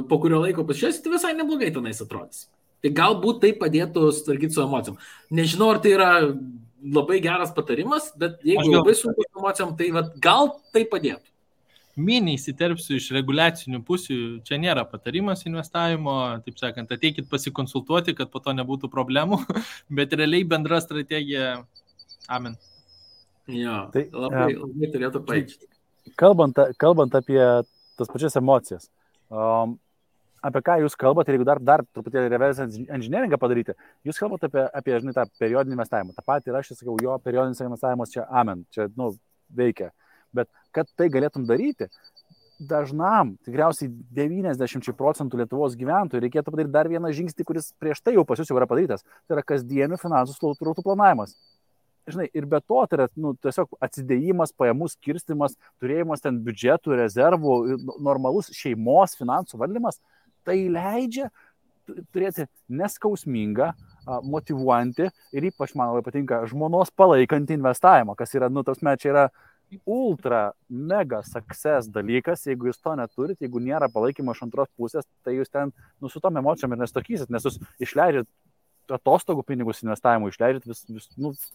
po kurio laiko pasižiūrėsite, visai neblogai tenais atrodys. Tai galbūt tai padėtų sutvarkyti su emocijom. Nežinau, ar tai yra labai geras patarimas, bet jeigu labai sunku su emocijom, tai gal tai padėtų. Mini įsiterpsiu iš reguliacinių pusių, čia nėra patarimas investavimo, taip sakant, ateikit pasikonsultuoti, kad po to nebūtų problemų, bet realiai bendra strategija, amen. Jo, tai labai turėtų paaiškinti. Kalbant apie tas pačias emocijas, apie ką jūs kalbate, ir jeigu dar truputėlį reverse engineeringą padaryti, jūs kalbate apie žinai, tą periodinį investavimą. Ta pati ir aš sakau, jo periodinis investavimas čia amen, čia veikia. Bet kad tai galėtum daryti, dažnam, tikriausiai 90% Lietuvos gyventojų reikėtų padaryti dar vieną žingsnį, kuris prieš tai jau pas jūs jau yra padarytas. Tai yra kasdienių finansų srautų planavimas. Žinai, ir be to tai yra tiesiog atsidėjimas, pajamų skirstimas, turėjimas ten biudžetų, rezervų, normalus šeimos finansų valdymas. Tai leidžia turėti neskausmingą, motyvuojantį ir ypač man labai patinka žmonos palaikantį investavimą, kas yra, čia yra ultra mega success dalykas, jeigu jūs to neturit, jeigu nėra palaikymo iš antros pusės, tai jūs ten su tom emocijom ir nestokysit, nes jūs išleidžiat atostogų pinigus investavimui išleidžiat,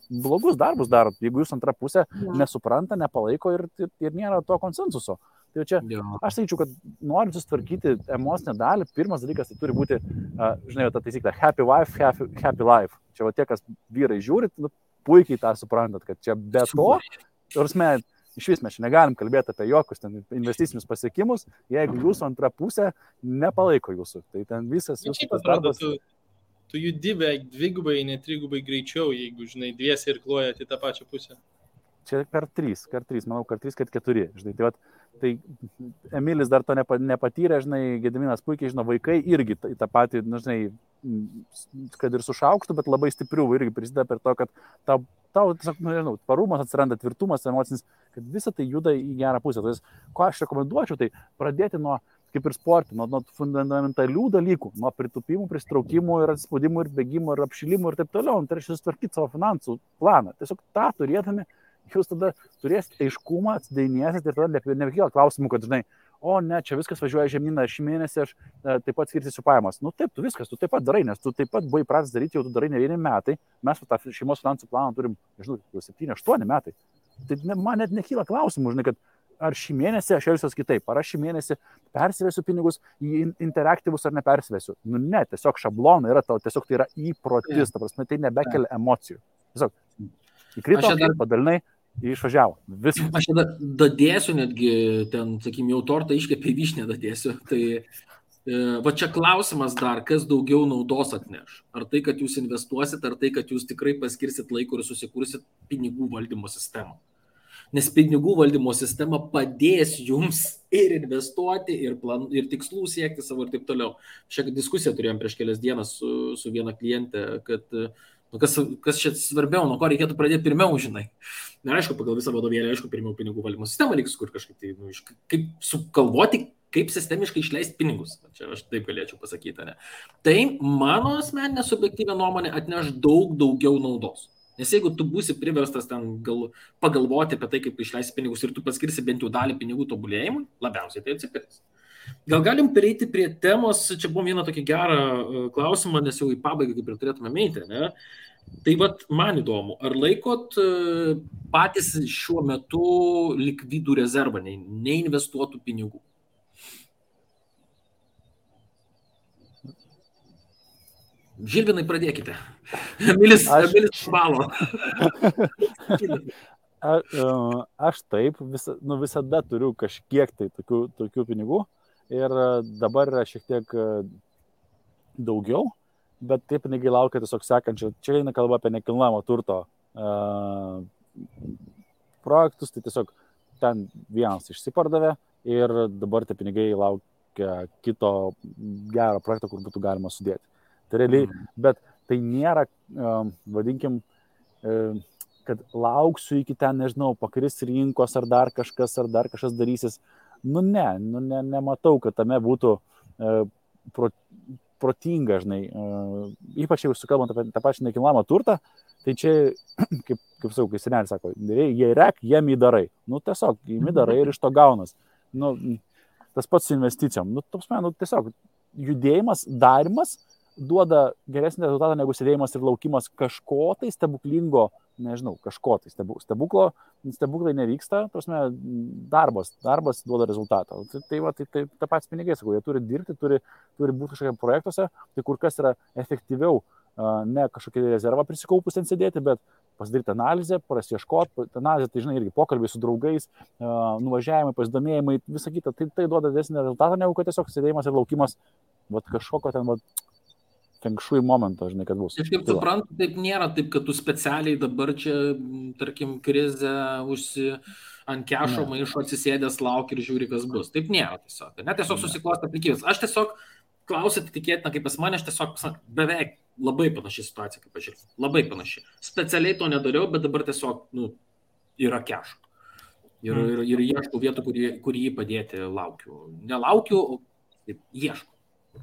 blogus darbus darot, jeigu jūs antrą pusę nesupranta, nepalaiko ir nėra to konsensuso. Tai čia, aš sakyčiau, kad norint susitvarkyti emocinę dalį, pirmas dalykas tai turi būti, žinai, ta taisyklė, happy wife, happy life. Čia va tie, kas vyrai žiūrit, puikiai tą suprantat, kad čia be to, iš vis mes čia negalim kalbėti apie jokius ten investicinius pasiekimus, jeigu jūsų antra pusė nepalaiko jūsų. Tai ten visas jūsų darbas. Tu judi beveik dvigubai, ne trigubai greičiau, jeigu, žinai, dviesi ir klojat į tą pačią pusę. Čia kart 3, manau, kart 3, kart 4, žinai, tai Emilis dar to nepatyrė, žinai, Gediminas puikiai žino, vaikai irgi tą patį, žinai, kad ir su šaukštu, bet labai stiprių irgi prisideda per to, kad tau tiesiog, nežinau, parumas atsiranda, tvirtumas emocinis, kad visa tai juda į gerą pusę. Tai ko aš rekomenduočiau, tai pradėti nuo, kaip ir sportį, nuo fundamentalių dalykų, nuo pritupimų, pristraukimų ir atspaudimų ir bėgimų ir apšilimų ir taip toliau. Tai reiškia susitvarkyti savo finansų planą. Tiesiog tą turėdami, jūs tada turėsite aiškumą, atsidainiesit ir tada nebekyla klausimų, kad, žinai, o ne, čia viskas važiuoja žemyną, šį mėnesį aš taip pat skirsiu pajamas. Taip, tu taip pat darai, nes tu taip pat buvai pradės daryti, jau tu darai ne 1 metai, mes tą šeimos finansų planą turim, nežinau, jau 7-8 metai. Tai man net nekyla klausimų, žinai, kad ar šį mėnesį aš elgsiuosi kitaip, ar aš šį mėnesį persivesiu pinigus į interaktyvus ar nepersivesiu. Ne, tiesiog šablonai yra tau, tiesiog tai yra įprotis, ta prasme, tai nebekelia emocijų. Tiesiog įkrito, padalinai, išvažiavo. Viskas. Aš tada dadėsiu netgi, ten, sakykim, jau tortą iškepė vyšnę dadėsiu. Tai va čia klausimas dar, kas daugiau naudos atneš. Ar tai, kad jūs investuosit, ar tai, kad jūs tikrai paskirsit laiko ir susikursit pinigų valdymo sistemą. Nes pinigų valdymo sistema padės jums ir investuoti, ir tikslų siekti savo ir taip toliau. Šią diskusiją turėjom prieš kelias dienas su viena klientė, kad kas čia svarbiau, nuo ko reikėtų pradėti pirmiau, žinai. Na, aišku, pagal visą vadovėlį, aišku, pirmiau pinigų valdymo sistemą reikia sukurti kažkaip tai, kaip sukalvoti, kaip sistemiškai išleisti pinigus. Čia aš taip galėčiau pasakyti, ne. Tai mano asmeninė subjektyvė nuomonė atneš daug daugiau naudos. Nes jeigu tu būsi priverstas ten pagalvoti apie tai, kaip išleisti pinigus ir tu paskirsi bent jau dalį pinigų tobulėjimui, labiausiai tai atsipirks. Gal galim pereiti prie temos, čia buvo vieną tokį gerą klausimą, nes jau į pabaigą kaip ir turėtume eiti, ne? Tai vat man įdomu, ar laikot patys šiuo metu likvidų rezervą, neinvestuotų pinigų? Žilvinai, pradėkite. Emilis balo. Aš taip, visada turiu kažkiek tai tokių pinigų. Ir dabar yra šiek tiek daugiau, bet tie pinigai laukia tiesiog sekančio. Čia eina kalba apie nekilnojamo turto projektus, tai tiesiog ten vienas išsipardavė ir dabar tie pinigai laukia kito gero projekto, kur būtų galima sudėti. Tai realiai, bet tai nėra, vadinkim, kad lauksiu iki ten, nežinau, pakris rinkos ar dar kažkas darysis. Nematau, kad tame būtų protinga, žinai, ypač jau sukalbant apie tą pačią nekilnojamą turtą, tai čia, kaip sakau, kai senelis sako, jei rek, jiem įdarai. Tiesiog, jiem įdarai ir iš to gaunas. Tas pats su investicijom. Tiesiog judėjimas, darimas duoda geresnį rezultatą negu sėdėjimas ir laukimas kažko tai stebuklingo, nežinau, kažko tai stebuklai nevyksta, prasme, darbas duoda rezultatą. Tai ta pats pinigai, sakau, jie turi dirbti, turi būti kažkokie projektuose, tai kur kas yra efektyviau, ne kažkokie rezervą prisikaupus ten sėdėti, bet pasidaryti analizę, prasieškoti, analizė, tai žinai, irgi pokalbiai su draugais, nuvažiavimai, pasidomėjimai, visą kitą, tai duoda didesnį rezultatą, negu kad tiesiog sėdėjimas ir laukimas, kažkokio ten, fenkšui momento, žinai, kad bus. Aš kaip suprantu, taip nėra taip, kad tu specialiai dabar čia, tarkim, krizę ant kešo maišo atsisėdęs lauki ir žiūri, kas bus. Taip nėra tiesiog. Ne, tiesiog susiklosti aplinkybės. Aš tiesiog klausyti tikėtina, kaip pas mane, aš tiesiog beveik labai panaši situacija, kaip aš žiūrėjau. Labai panaši. Specialiai to nedariau, bet dabar tiesiog, yra kešo. Ir ieškau vietų, kur jį padėti laukiu. Nelaukiu, ieškau.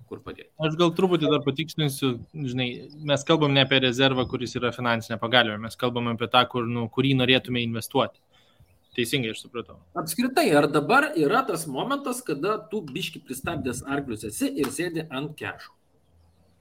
Kur padėti. Aš gal truputį dar patikslinsiu, žinai, mes kalbam ne apie rezervą, kuris yra finansinė pagalbė, mes kalbam apie tą, kurį norėtume investuoti. Teisingai aš supratau. Apskritai, ar dabar yra tas momentas, kada tu biški pristabdęs arklius esi ir sėdi ant kešo?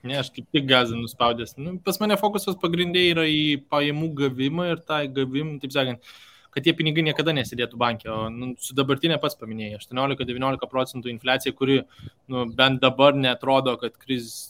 Ne, aš kaip tik gazą nuspaudęs. Pas mane fokusas pagrindė yra į pajamų gavimą ir tą gavimą, taip sakant, kad tie pinigai niekada nesidėtų bankė. O su dabartinė pats paminėjai, 18-19% infliacija, kuri bent dabar netrodo, kad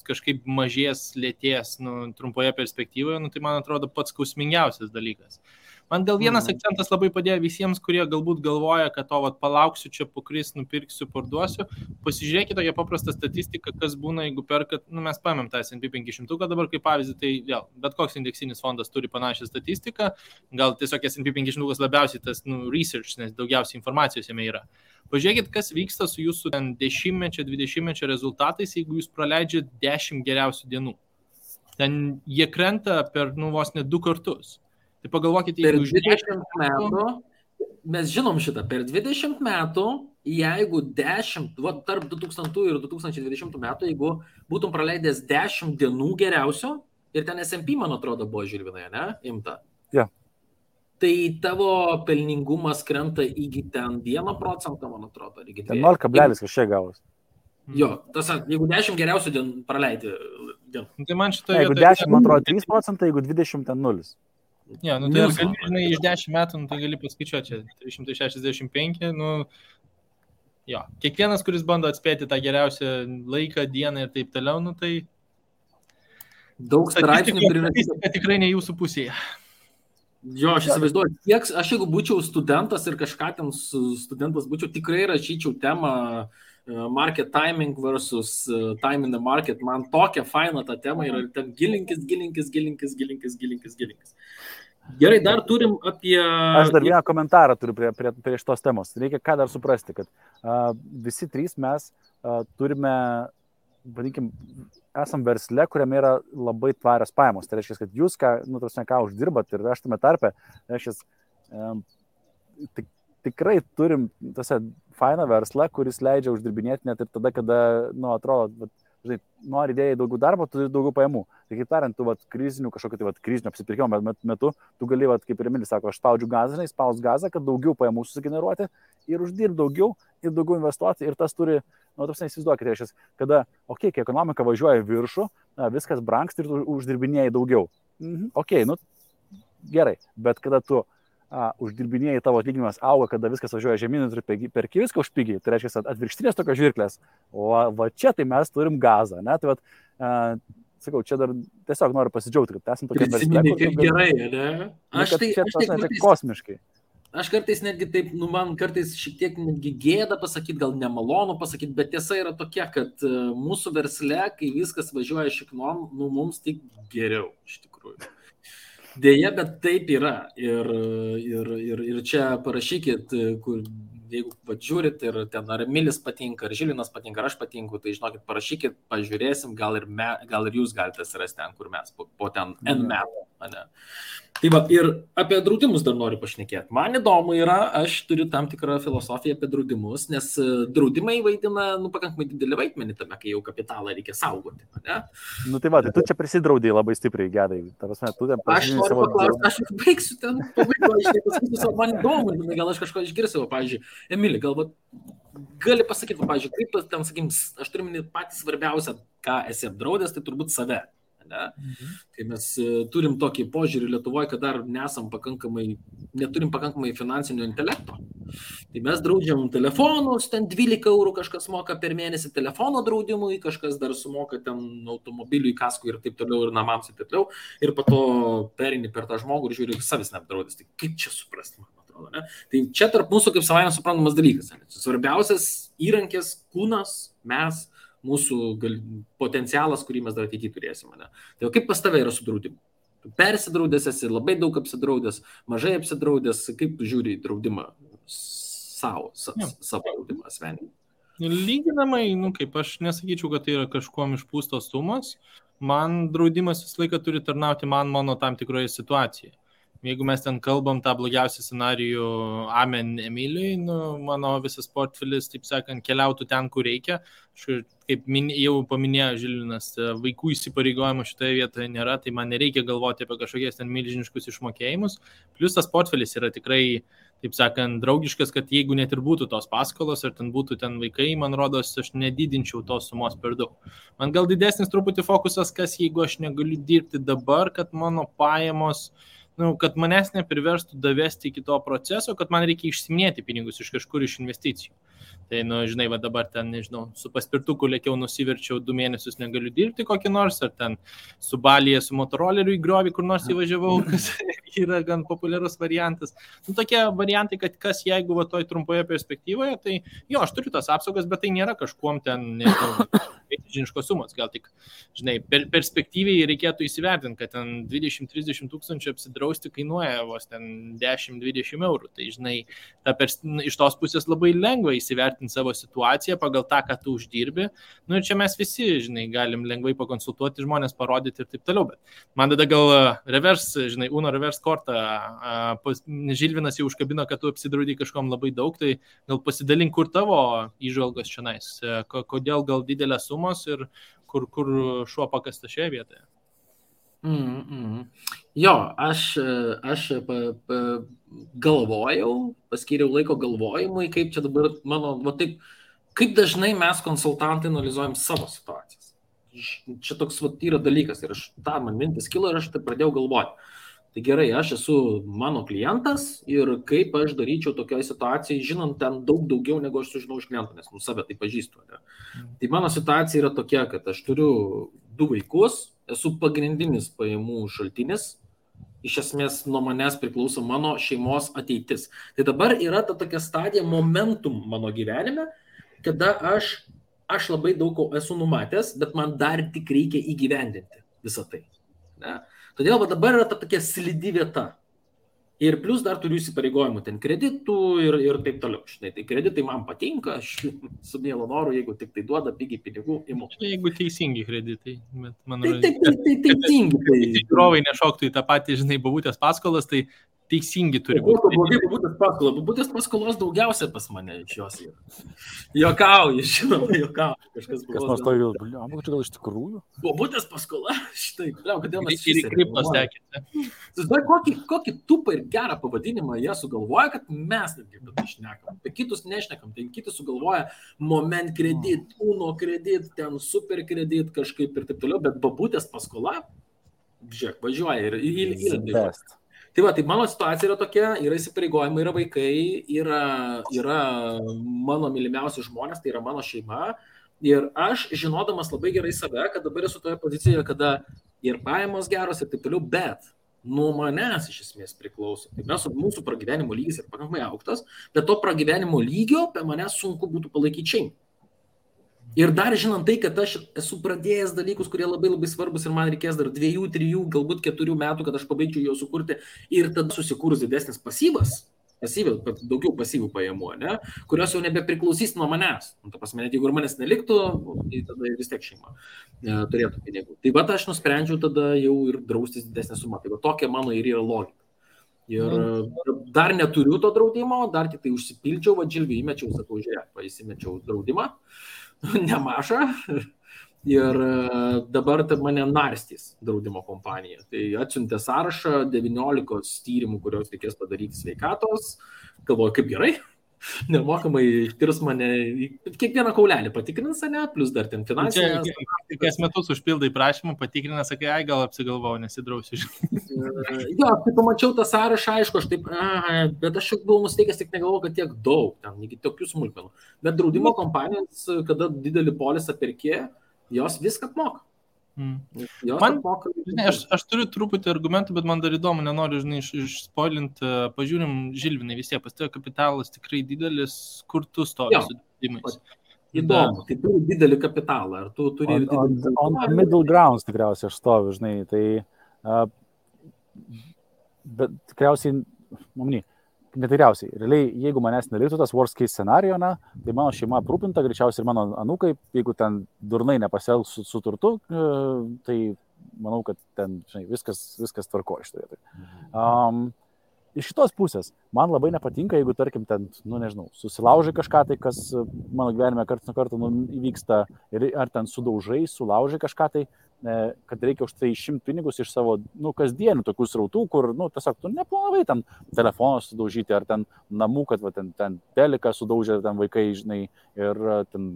kažkaip mažės, lėtės trumpoje perspektyvoje, tai man atrodo pats skausmingiausias dalykas. Man gal vienas akcentas labai padėjo visiems, kurie galbūt galvoja, kad palauksiu čia pakris, nupirksiu, parduosiu. Pasižiūrėkite tokią paprastą statistiką, kas būna, jeigu perkat, mes paėmėm tą S&P 500 dabar kaip pavyzdį, tai vėl, bet koks indeksinis fondas turi panašią statistiką, gal tiesiog S&P 500 labiausiai tas research, nes daugiausiai informacijos jame yra. Pažiūrėkit, kas vyksta su jūsų 10-mečio, 20-mečio rezultatais, jeigu jūs praleidžiat 10 geriausių dienų. Ten jie krenta per vos ne 2 kartus. Tai pagalvokite, per 20 metų, mes žinom šitą, per 20 metų, jeigu 10, tarp 2000 ir 2020 metų, jeigu būtum praleidęs 10 dienų geriausio, ir ten S&P, man atrodo, buvo Žilvinai, ne? Imta. Ja. Tai tavo pelningumas krenta iki ten 1%, man atrodo. 0 kablelis kažkiek gavos. Jo, tas, jeigu 10 geriausių dienų praleidė. Tai man šitoje jeigu 10, man atrodo, 3%, jeigu 20, ten 0. Ja, tai gali, iš 10 metų, tai gali paskaičiuoti čia 365, jo. Kiekvienas, kuris bando atspėti tą geriausią laiką, dieną ir taip toliau, tai daug straipsnių statistika tikrai ne jūsų pusėje. Jo, aš įsivaizduoju, aš jeigu būčiau studentas ir kažką ten studentas būčiau, tikrai rašyčiau temą market timing versus time in the market. Man tokia faina ta tema ir ten gilinkis. Gerai, dar turim apie... Aš dar vieną komentarą turiu prie šitos temos. Reikia ką dar suprasti, kad visi trys mes turime, vadinkim, esam versle, kuriame yra labai tvarios pajamos. Tai reiškia, kad jūs ką uždirbat ir aš tame tarpe, reiškia, tikrai turim fainą verslą, kuris leidžia uždirbinėti net ir tada, kada, atrodo, žinai, nori idėjai daugiau darbo, turi daugiau pajamų. Tai kaip tariant, tu krizinio apsipirkimo metu, tu gali, kaip ir Emilis sako, aš spaudžiu gazą, spaus gazą, kad daugiau pajamų susigeneruoti ir uždirbti daugiau ir daugiau investuoti. Ir tas turi, įsivaizduokite, reiškia, kada, kai ekonomika važiuoja viršų, viskas brangsta ir tu uždirbinėjai daugiau. Gerai, bet kada tu uždirbinėjai, tavo atlyginimas auga, kada viskas važiuoja žemyn ir perki viską už pigiai, tai reiškia atvirkštinės tokios žirklės, o va čia tai mes turim gazą, ne? Tai sakau, čia dar tiesiog noriu pasidžiaugti, kad esam tokie versle, kaip gerai, ne? Aš tai kosmiškai. Aš kartais netgi taip, man kartais šiek tiek netgi gėda pasakyti, gal nemalonu pasakyti, bet tiesa yra tokia, kad mūsų versle, kai viskas važiuoja šiknom, mums tik geriau, iš tikrųjų. Deja, bet taip yra. Ir čia parašykit, jeigu žiūrit ir ten ar Emilis patinka, ar Žilinas patinka, ar aš patinku, tai žinokit, parašykit, pažiūrėsim, gal ir jūs galite surasti ten, kur mes, po ten N metų. Ne? Tai va, ir apie draudimus dar noriu pašnekėti. Man įdomu yra, aš turiu tam tikrą filosofiją apie draudimus, nes draudimai vaidina pakankamai didelį vaidmenį tame, kai jau kapitalą reikia saugoti. Ne? Tai va, tai tu čia prisidraudai labai stipriai, Gedai. Aš noriu paklausti, aš baigsiu ten pabaigą, man įdomu, gal aš kažko išgirsiu, pavyzdžiui, Emili, galbūt gali pasakyti, pavyzdžiui, kaip ten, sakykim, aš turiu minėti patį svarbiausią, ką esi apdraudęs, tai turbūt save. Ne? Kai mes turim tokį požiūrį Lietuvoje, kad dar neturim pakankamai finansinio intelekto. Tai mes draudžiam telefonus, ten 12 eurų kažkas moka per mėnesį telefono draudimui, kažkas dar sumoka ten automobiliui, kaskui ir taip toliau, ir namams ir taip toliau. Ir po to perini per tą žmogų ir žiūri, savis neapdraudęs. Tai kaip čia suprasti, man atrodo, ne? Tai čia tarp mūsų kaip savaime suprantamas dalykas. Ne? Svarbiausias įrankis, kūnas, mes, mūsų potencialas, kurį mes dar ateityje turėsime. Ne? Tai kaip pas tave yra su draudimu? Tu persidraudęs esi, labai daug apsidraudęs, mažai apsidraudęs, kaip tu žiūri į draudimą savo draudimą asmeninį? Lyginamai, kaip aš nesakyčiau, kad tai yra kažkuom išpūstos sumos, man draudimas visą laiką turi tarnauti mano tam tikroje situacijoje. jeigu mes ten kalbam tą blogiausią scenarijų Amen Emilijai, mano visas portfelis, taip sakant, keliautų ten, kur reikia. Kaip jau paminėjo Žilvinas, vaikų įsipareigojimų šitoje vietoje nėra, tai man nereikia galvoti apie kažkokias ten milžiniškus išmokėjimus. Plius tas portfelis yra tikrai, taip sakant, draugiškas, kad jeigu net ir būtų tos paskolos, ar ten būtų ten vaikai, man rodos, aš nedidinčiau tos sumos per daug. Man gal didesnis truputį fokusas, kas jeigu aš negaliu dirbti dabar, kad mano pajamos, kad manęs nepriverstų davesti iki to proceso, kad man reikia išsiminėti pinigus iš kažkur iš investicijų. Tai, žinai, va dabar ten, nežinau, su paspirtuku lėkiau nusiverčiau 2 mėnesius negaliu dirbti kokį nors, ar ten su Balyje, su motoroleriu į griovį kur nors įvažiavau, kas yra gan populiarus variantas. Tokie variantai, kad kas jeigu va toj trumpoje perspektyvoje, tai jo, aš turiu tas apsaugas, bet tai nėra kažkuom ten, nežinau, žiniškos sumos, gal tik, žinai, perspektyviai reikėtų įsivertinti, kad ten 20-30 tūkstančių apsidrausti kainuoja vos ten 10-20 eurų. Tai, žinai, iš tos pusės labai lengva įsivertinti savo situaciją pagal tą, ką tu uždirbi. Ir čia mes visi, žinai, galim lengvai pakonsultuoti žmonės, parodyti ir taip toliau. Bet man tada gal Uno reverse kortą, Žilvinas jau užkabino, kad tu apsidraudai kažkom labai daug, tai gal pasidalink, kur tavo įžvalgos čionais, kodėl gal didelės sumos ir kur šuo pakasta šioje vietoje. Jo, aš galvojau, paskyriau laiko galvojimui, kaip čia dabar taip, kaip dažnai mes konsultantai analizuojam savo situacijas. Čia toks yra dalykas ir man mintis kilo ir aš tai pradėjau galvoti. Tai gerai, aš esu mano klientas ir kaip aš daryčiau tokioje situacijoje, žinant ten daug daugiau, negu aš sužinau iš kliento, nes save tai pažįstu. Ne? Tai mano situacija yra tokia, kad aš turiu 2 vaikus, esu pagrindinis pajamų šaltinis, iš esmės nuo manęs priklauso mano šeimos ateitis. Tai dabar yra ta tokia stadija, momentum mano gyvenime, kada aš labai daug esu numatęs, bet man dar tik reikia įgyvendinti visą tai. Ne? Todėl dabar yra ta tokia slidi vieta. Ir plus dar turiu įsipareigojimų ten kreditų ir taip toliau. Štai, tai kreditai man patinka, aš su mielu noru, jeigu tik tai duoda pigiai pinigų, imu. Jeigu teisingi kreditai. Tai teisingi. Žiūrovai nešoktų į tą patį, žinai, babutės paskolas, tai teisingi turi būti. Babutės paskolos daugiausia pas mane iš jos yra. Jokauju, žinoma, jokauju. Kas nors to jau, gal iš tikrųjų? Babutės paskola, štai, kodėl mes ir kriptos tekite. Kokį tupą ir gerą pavadinimą jie sugalvoja, kad mes netgi apie tai šnekam. Apie kitus nešnekam, tai kiti sugalvoja moment kredit, Uno kredit, ten super kredit kažkaip ir taip toliau, bet babutės paskola, žiūrėk, važiuoja ir Tai va, tai mano situacija yra tokia, yra įsipareigojimai, yra vaikai, yra mano mylimiausi žmonės, tai yra mano šeima. Ir aš, žinodamas labai gerai save, kad dabar esu toje pozicijoje, kada ir pajamos geros ir taip toliau, bet nuo manęs iš esmės priklauso. Tai mūsų pragyvenimo lygis yra pakankamai aukštas, bet to pragyvenimo lygio be manęs sunku būtų palaikyti šeimą. Ir dar žinant tai, kad aš esu pradėjęs dalykus, kurie labai labai svarbus ir man reikės dar 2, 3, galbūt 4 metų, kad aš pabaigčiau jau sukurti ir tada susikūrus didesnis daugiau pasyvių pajamų, ne, kurios jau nebepriklausys nuo manęs. Ta prasme, net jeigu ir manęs neliktų, tai tada vis tiek šeima turėtų pinigų. Tai va, aš nusprendžiau tada jau ir draustis didesnę sumą. Tai va, tokia mano ir yra logika. Ir dar neturiu to draudimo, dar tik tai užsipildžiau, Žilvį įmečiau, sakau, žiūrėk, įsimečiau draudimą. Nemažą ir dabar mane narstys draudimo kompanija. Tai atsiuntė sąrašą 19 tyrimų, kurios reikės padaryti sveikatos. Galvoju, kaip gerai, nemokamai tirs mane, kiekvieną kaulelį patikrins, ne, plus dar ten finansinės. Kas metus užpildai prašymą, patikrina, sakai, gal apsigalvojau, nesidrausiu. Jo, kai pamačiau tą sąrašą, aišku, aš taip, bet aš jau buvau nusteikęs, tik negalvojau, kad tiek daug, ten, iki tokių smulkmenų. Bet draudimo kompanijos, kada didelį polisą perkė, jos viską apmoka. Aš turiu truputį argumentų, bet man dar įdomu, nenoriu, žinai, išspoilinti, pažiūrim, Žilvinai, vis tiek pas tave kapitalas tikrai didelis, kur tu stovi su draudimais. Įdomu, tai turi didelį kapitalą, ar tu turi... On middle grounds tikriausiai aš stoviu, žinai, tai... Bet tikriausiai, netikriausiai, realiai, jeigu manęs neliktų tas worst case scenario, tai mano šeima aprūpinta, greičiausiai ir mano anūkai, jeigu ten durnai nepasielgs su turtu, tai manau, kad ten, žinai, viskas tvarko iš to vietoj. Iš šitos pusės, man labai nepatinka, jeigu, tarkim, ten, nežinau, susilaužai kažką, tai kas mano gyvenime karts nuo karto įvyksta, ar ten sulaužai kažką, tai kad reikia už tai išimti pinigus iš savo, kasdienių tokių srautų, kur, tiesiog tu neplanavai ten telefoną sudaužyti, ar ten namų, kad ten teliką sudaužė, ten vaikai, žinai, ir ten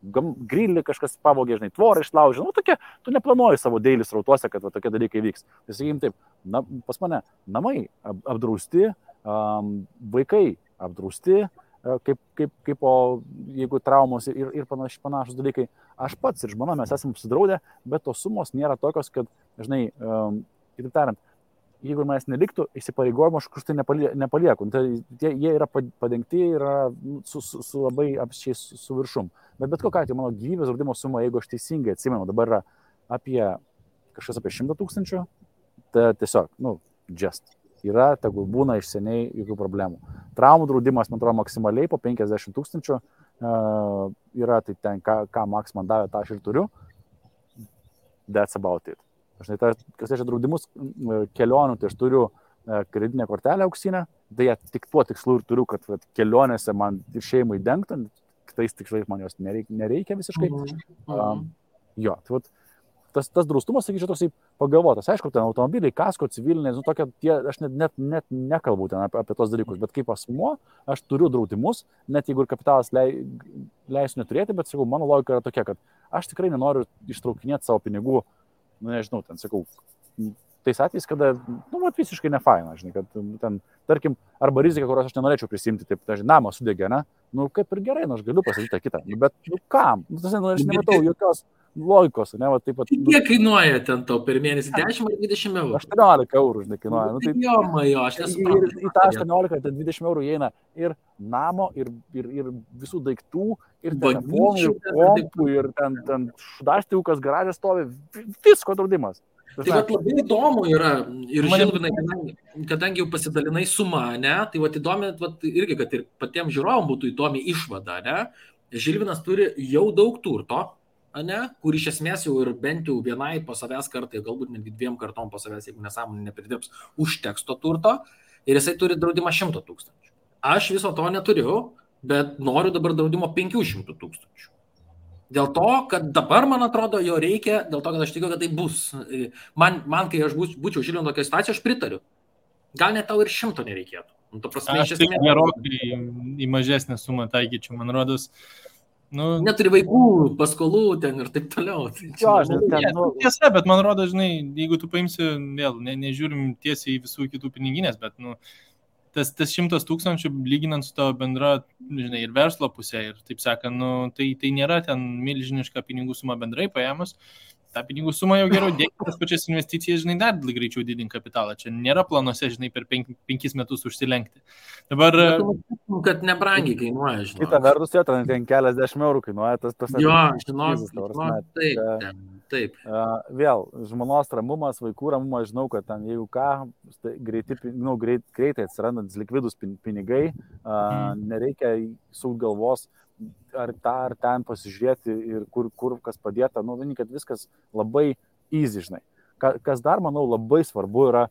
grilį kažkas pavogė, žinai, tvorą išlaužė, tokie, tu neplanuoji savo daily srautuose, kad tokie dalykai vyks. Tai sakykim taip, pas mane namai apdrausti, vaikai apdrausti, kaip jeigu traumos ir panašus dalykai. Aš pats ir žmona mes esame apsidraudę, bet tos sumos nėra tokios, kad, žinai, kitaip tariant, jeigu manęs neliktų, įsipareigojimo aš kažkur tai nepalieku. Tai jie yra padengti, yra su labai apsčiai su viršum. Bet kokia atveju mano gyvybės draudimo suma, jeigu aš teisingai atsimenu, dabar yra apie 100 000, tai tiesiog, just. Yra, tegul būna iš seniai jokių problemų. Traumų draudimas, man atrodo, maksimaliai po 50 000 yra, tai ten, ką Maks man davė, tą aš ir turiu. That's about it. Aš kas reiškia draudimus kelionių, tai aš turiu kreditinę kortelę auksinę, tai tik tuo tikslu ir turiu, kad kelionėse man ir šeimai dengtų, kitais tikslais man jos nereikia visiškai. Jo, tai tas draustumas, sakyčiau, toksai pagalvotas. Aišku, ten automobiliai, kasko, civilinės, aš net nekalbu ten apie tos dalykus, bet kaip asmuo, aš turiu draudimus, net jeigu ir kapitalas leisiu neturėti, bet sakau, mano logika yra tokia, kad aš tikrai nenoriu ištraukinėti savo pinigų, nežinau, ten sakau, tais atvejais, kada, visiškai nefaina, žinai, kad ten, tarkim, arba rizika, kurios aš nenorėčiau prisimti, taip, dažnai, namas sudegė, ne? Kaip ir gerai, aš galiu pasakyti tą kitą, bet, kam? Aš nematau jokios logikos, ne, taip pat. Kiek kainuoja ten tau per mėnesį? 10 ar 20 eurų? 18 eurų, žinai, kainuoja. Jo, aš nesuprantu. Į tą 18, ten 20 eurų įeina ir namo, ir visų daiktų, ir telefonų, ir kompų, ir ten šudastiukas garažas stovi, visko draudimas. Tai labai įdomu yra, ir Žilvinai, kadangi jau pasidalinai sumą, ne, tai įdomi, irgi, kad ir patiems žiūrovom būtų įdomi išvada, ne, Žilvinas turi jau daug turto, ne, kur iš esmės jau ir bent jau vienai po savęs kartai, galbūt netgi 2 kartom po savęs, jeigu nesąmonė nepridirbs, užteks to turto, ir jisai turi draudimą 100 000. Aš viso to neturiu, bet noriu dabar draudimo 500 000. Dėl to, kad dabar, man atrodo, jo reikia, dėl to, kad aš tikiu, kad tai bus. Man kai aš būčiau Žilvino tokia situacija, aš pritariu. Gal net tau ir 100 nereikėtų. Aš tai gerokai į mažesnę sumą taikyčiau, man rodos. Neturi vaikų, paskolų ten ir taip toliau. Tiesa, bet man rodo, žinai, jeigu tu paimsi, vėl, nežiūrim tiesiai į visų kitų piniginės, bet, tas 100 000 lyginant su tavo bendra, žinai, ir verslo pusė, ir taip sakant, tai nėra ten milžiniška pinigų suma bendrai paėmus. Ta pinigų suma jau geriau dėkti tas pačias investicijas, žinai, dar greičiau didinti kapitalą. Čia nėra planuose, žinai, per 5 metus užsilenkti. Dabar... Kad nebrangiai kainuoja, žinai. Kita vertus, ten keliasdešimt eurų kainuoja. Jo, taip. Vėl, žmonos ramumas, vaikų ramumas, žinau, kad ten, jeigu ką, greitai atsirandantis likvidus pinigai, nereikia sukti galvos, ar ten pasižiūrėti ir kur kas padėta, vieni, kad viskas labai easy, žinai. Kas dar, manau, labai svarbu yra,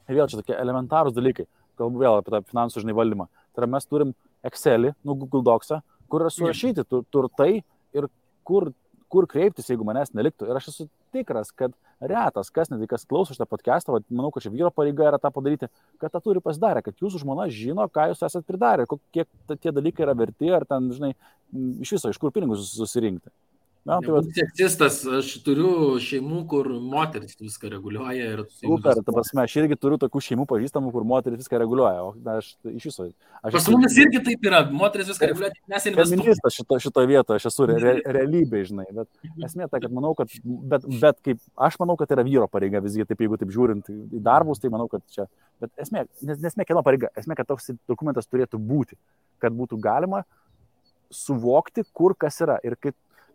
vėl čia tokie elementarūs dalykai, kalbu vėl apie tą finansų, žinai, valdymą. Tai yra mes turim Excelį, Google Docsą, kur yra surašyti turtai ir kur kreiptis, jeigu manęs neliktų. Ir aš esu tikras, kad retas, kas klauso šitą podcastą, manau, kad čia vyro pareiga yra tą padaryti, kad tą turi pasidarę, kad jūsų žmona žino, ką jūs esat pridarę, kiek tie dalykai yra verti, ar ten, žinai, iš viso, iš kur pinigus susirinkti. Seksistas, aš turiu šeimų, kur moteris viską reguliuoja. Super, ta prasme, aš irgi turiu tokių šeimų pažįstamų, kur moteris viską reguliuoja. O aš iš viso... Pas mumis irgi taip yra, moteris viską reguliuoja, mes investuojame. Feministas šitoje vietoje, aš esu realybė, žinai, bet esmė ta, kad manau, kad, bet kaip, aš manau, kad yra vyro pareiga visgi, taip jeigu taip žiūrint į darbus, tai manau, kad čia, bet esmė kieno pareiga, esmė, kad toks dokumentas turėtų būti, kad būtų galima suvokti, kur kas yra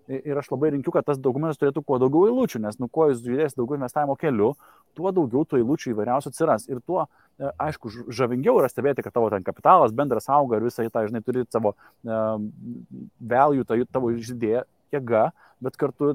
ir aš labai rinkiu, kad tas dokumentas turėtų kuo daugiau eilučių, nes kuo jūs žiūrės daugiau investavimo keliu, tuo daugiau tų eilučių įvairiausių atsiras. Ir tuo, aišku, žavingiau yra stebėti, kad tavo ten kapitalas bendras auga ir visai tą, žinai, turi savo value, tavo žydėję jėga, bet kartu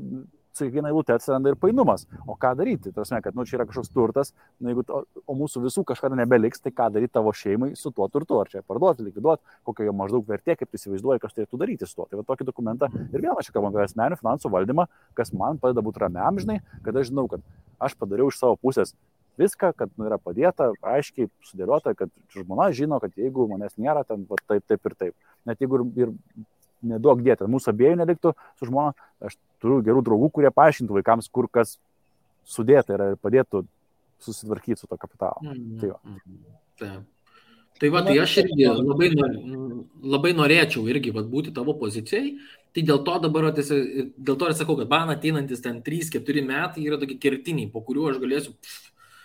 su kiekviena eilute atsiranda ir painumas. O ką daryti? Tarsi, kad čia yra kažkoks turtas, jeigu o mūsų visų kažkada nebeliks, tai ką daryti tavo šeimai su tuo turtu? Ar čia parduoti, likviduoti, kokia jo maždaug vertė, kaip tu įsivaizduoji, kas turėtų daryti su tuo. Tai va tokį dokumentą ir vėl aš kalbam apie asmeninių finansų valdymą, kas man padeda būti ramiam, žinai, kad aš žinau, kad aš padariau iš savo pusės viską, kad yra padėta, aiškiai sudėliota, kad žmona žino, kad jeigu manęs nėra, ten va, taip ir taip. Net jeigu ir neduok dėti, mūsų abiejų neliktų su žmona, aš turiu gerų draugų, kurie paaiškintų vaikams, kur kas sudėta yra ir padėtų susitvarkyti su to kapitalu. Tai va, tai aš irgi labai norėčiau irgi būti tavo pozicijai, tai dėl to dabar, dėl to ir sakau, kad man ateinantis ten 3-4 metai yra tokie kertiniai, po kuriuo aš galėsiu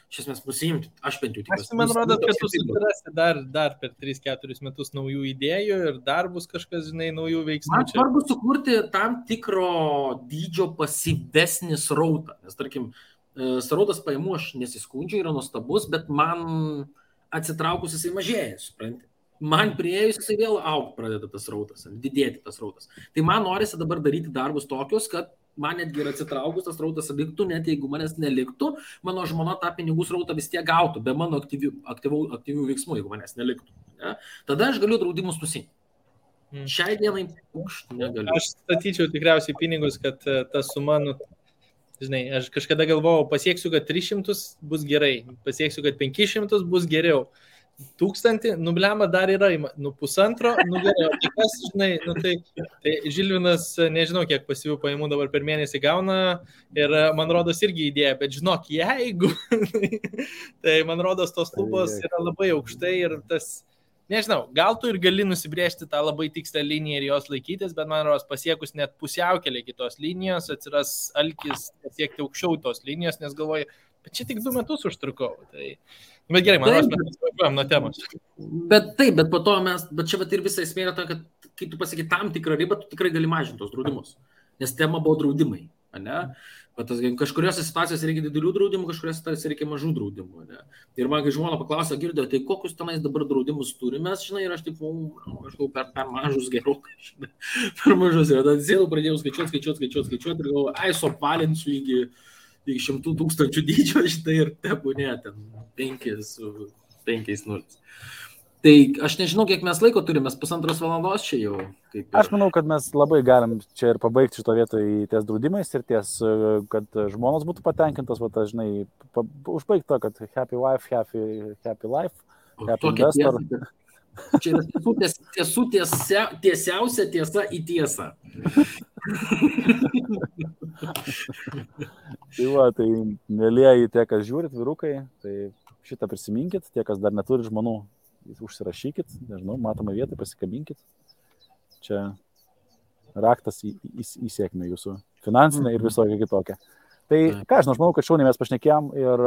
iš esmės nusiimti, aš bent jau tikiuosi. Man rodo, kad tu susirasi dar per 3-4 metus naujų idėjų ir dar bus kažkas, žinai, naujų veiksmų. Man svarbu sukurti tam tikro dydžio pasyvesnį srautą, nes tarkim, srautas pajamų aš nesiskundžiu, yra nuostabus, bet man atsitraukus jisai mažėja, supranti. Man priėjus jisai vėl augti pradeda tas srautas, didėti tas srautas. Tai man norisi dabar daryti darbus tokius, kad man netgi ir atsitraukus tas srautas liktų, net jeigu manęs neliktų, mano žmona tą pinigų srautą vis tiek gautų, be mano aktyvių veiksmų, jeigu manęs neliktų. Ne? Tada aš galiu draudimus nusimti. Šiai dienai negaliu. Aš statyčiau tikriausiai pinigus, kad ta suma, žinai, aš kažkada galvojau, pasieksiu, kad 300 bus gerai, pasieksiu, kad 500 bus geriau. 1000, nublema dar yra, 1,5, geriau. Tai kas, žinai, tai Žilvinas, nežinau, kiek pasyvių pajamų dabar per mėnesį gauna ir man rodos irgi idėja, bet žinok, jeigu, tai man rodos tos lubos yra labai aukštai ir tas, nežinau, gal tu ir gali nusibrėžti tą labai tikslę liniją ir jos laikytis, bet man rodos pasiekus net pusiaukelį kitos linijos, atsiras alkis pasiekti aukščiau tos linijos, nes galvoju, bet čia tik 2 metus užtrukau. Bet gerai, man rodos, mes važiuojam nuo temos. Bet po to bet čia ir visa esmė yra ta, kad kai tu pasakai tam tikrą ribą, tu tikrai gali mažinti tos draudimus. Nes tema buvo draudimai, ne? Bet kažkuriuose situacijose reikia didelių draudimų, kažkuriuose reikia mažų draudimų, ne? Ir man, kai žmona paklausė, girdėjo, tai kokius tenais dabar draudimus turime, žinai, ir aš taip, kažkau per mažus gerokai, žinai, per mažus. Ir tada sėdau, pradėjau skaičiuoti ir galvoju, suapvalinsiu iki 100 000 dydžio, štai ir tebūnė ten 5 nulis. Tai aš nežinau, kiek mes laiko turime, 1,5 valandos čia jau. Aš manau, kad mes labai galim čia ir pabaigti šito vietoje ties draudimais ir ties, kad žmonos būtų patenkintos, va, žinai, užbaigti to, kad happy wife, happy life, happy investor. Čia yra tiesiausia tiesa į tiesą. Tai va, tai mėlieji tie, kas žiūrit, vyrukai, tai šitą prisiminkit, tie, kas dar neturi žmonų, užsirašykit, nežinau, matomą vietą, pasikabinkit. Čia raktas į sėkmę jūsų finansinę ir visokią kitokią. Tai ką, aš manau, kad šauniai mes pašnekėjom ir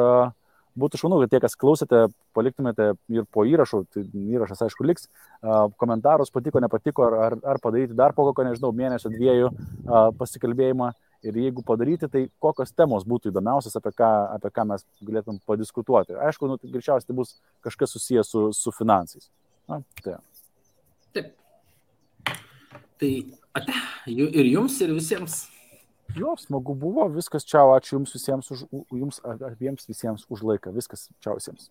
būtų šaunu, kad tie, kas klausėte, paliktumėte ir po įrašų, tai įrašas aišku liks, komentarus patiko, nepatiko, ar padaryti dar po kokio, nežinau, mėnesio 2 pasikalbėjimą. Ir jeigu padaryti, tai kokios temos būtų įdomiausias, apie ką mes galėtum padiskutuoti. Aišku, greičiausiai tai bus kažkas susijęs su finansais. Na, tai. Taip. Tai ate, ir jums, ir visiems. Jo, smagu buvo, viskas, čiau, ačiū jums visiems, jums abiems visiems už laiką. Viskas, čiau visiems.